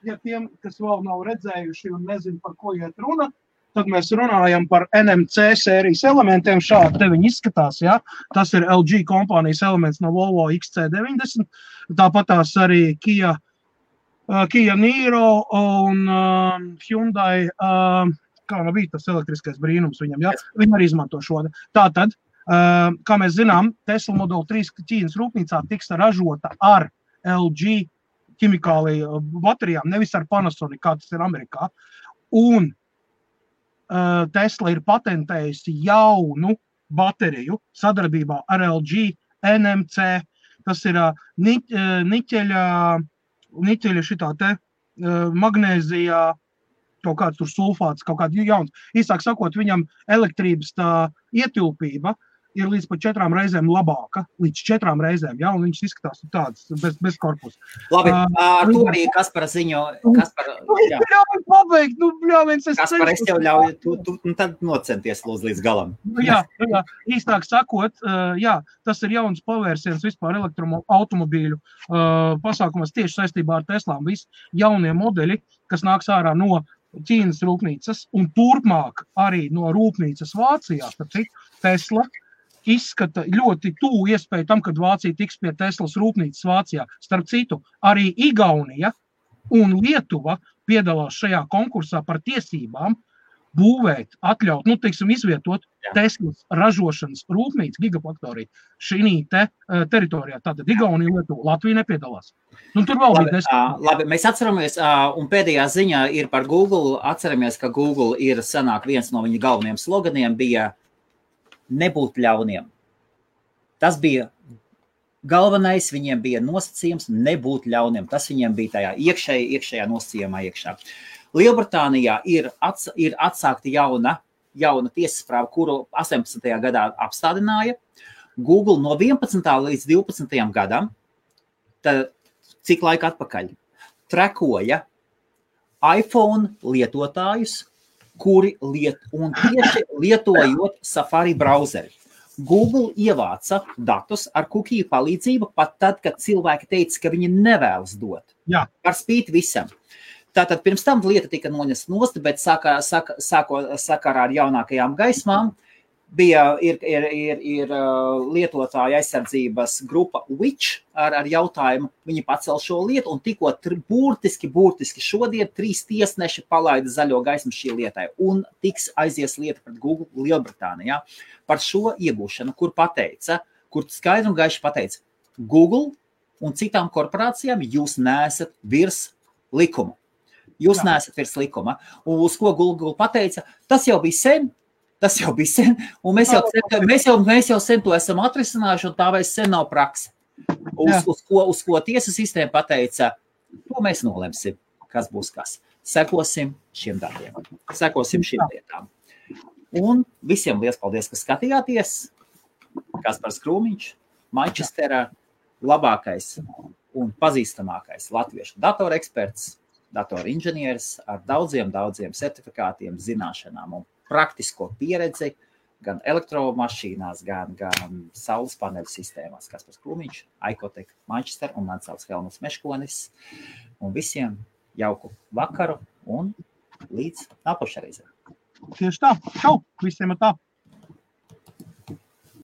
ja tiem, kas vēl nav redzējuši un nezinu, par ko iet runa, tad mēs runājam par NMC sērijas elementiem. Šādi te viņi izskatās. Ja? Tas ir LG kompānijas elements no Volvo XC90. Tāpat tās arī Kia Niro un Hyundai, kā bija tas elektriskais brīnums viņam, ja? Viņi arī izmanto šo. Tātad, kā mēs zinām, Tesla Model 3 Ķīnas rūpnīcā tiks ražota ar LG ķimikāliju baterijām, nevis ar Panasonic, kā tas ir Amerikā. Un Tesla ir patentējusi jaunu bateriju sadarbībā ar LG NMC. Tas ir niķeļa šitā te magnēzijā, kaut kāds tur sulfāts, kaut kāds jauns. Īsāk sakot, viņam elektrības tā ietilpība ir līdz pat 4 reizēm labāka, līdz 4 reizēm, ja, un viņš izskatās tāds bez korpusa. Labi, ar to arī Kaspara ziņo, Ļauj pabeigt, Kaspar, es tev ļauju, tu tad nocenties līdz galam. Jā, īstāk sakot, jā, tas ir jauns pavērsiens vispār elektroautomobīļu pasākumos tieši saistībā ar Teslām. Visi jaunie modeļi, kas nāks ārā no Ķīnas rūpnīcas un turpmāk arī no rūpnīcas Vācijā, tāpēc Tesla izskata ļoti tuvu iespēju tam, kad Vācija tiks pie Teslas rūpnīcas Vācijā. Starp citu, arī Igaunija un Lietuva piedalās šajā konkursā par tiesībām būvēt, atļaut, izvietot Teslas ražošanas rūpnīcu gigafaktoriju šī teritorijā. Tātad Igaunija, Lietuva, Latvija nepiedalās. Tur vēl bija labi, mēs atceramies, un pēdējā ziņā ir par Google, atceramies, ka Google ir sanāk viens no viņa galvenajiem sloganiem bija nebūt ļauniem. Tas bija galvenais, viņiem bija nosacījums nebūt ļauniem. Tas viņiem bija tajā iekšējā nosacījumā iekšā. Lielbritānijā ir atsākta jauna tiesas prāva, kuru 18. gadā apstādināja. Google no 11. līdz 12. gadam, tad cik laika atpakaļ, trekoja iPhone lietotājus, kuri tieši lietojot Safari brauzeri. Google ievāca datus ar cookie palīdzību pat tad, kad cilvēki teica, ka viņi nevēlas dot. Jā. Par spīti visam. Tātad pirms tam lieta tika noņemta nost, bet sakarā ar jaunākajām gaismām ir lietotāja aizsardzības grupa Which ar jautājumu. Viņi pacēla šo lietu un tikko burtiski šodien 3 tiesneši palaida zaļo gaismu šī lietai un tiks aizies lieta pret Google Lielbritānijā par šo iegūšanu, kur skaidri un gaiši pateica Google un citām korporācijām jūs neesat virs likuma. Jūs neesat virs likuma. Un uz ko Google pateica, tas jau bija sen, un mēs jau sen to esam atrisinājuši, un tā vairs sen nav prakse. Uz ko tiesas sistēma pateica, to mēs nolemsim, kas būs kas. Sekosim šiem darbiem, sekosim šiem lietām. Un visiem liels paldies, ka skatījāties. Kaspars Krūmiņš, Manchesterā, labākais un pazīstamākais latviešu datoreksperts, datorinženieris ar daudziem certifikātiem, zināšanām un praktisko pieredzi gan elektromašīnās, gan saules paneļu sistēmās. Kaspars Krūmiņš, Icotec, Manchester un man sauc Helmuts Meškonis. Un visiem jauku vakaru un līdz nākošajai reizei. Tieši tā. Čau! Visiem ir tā.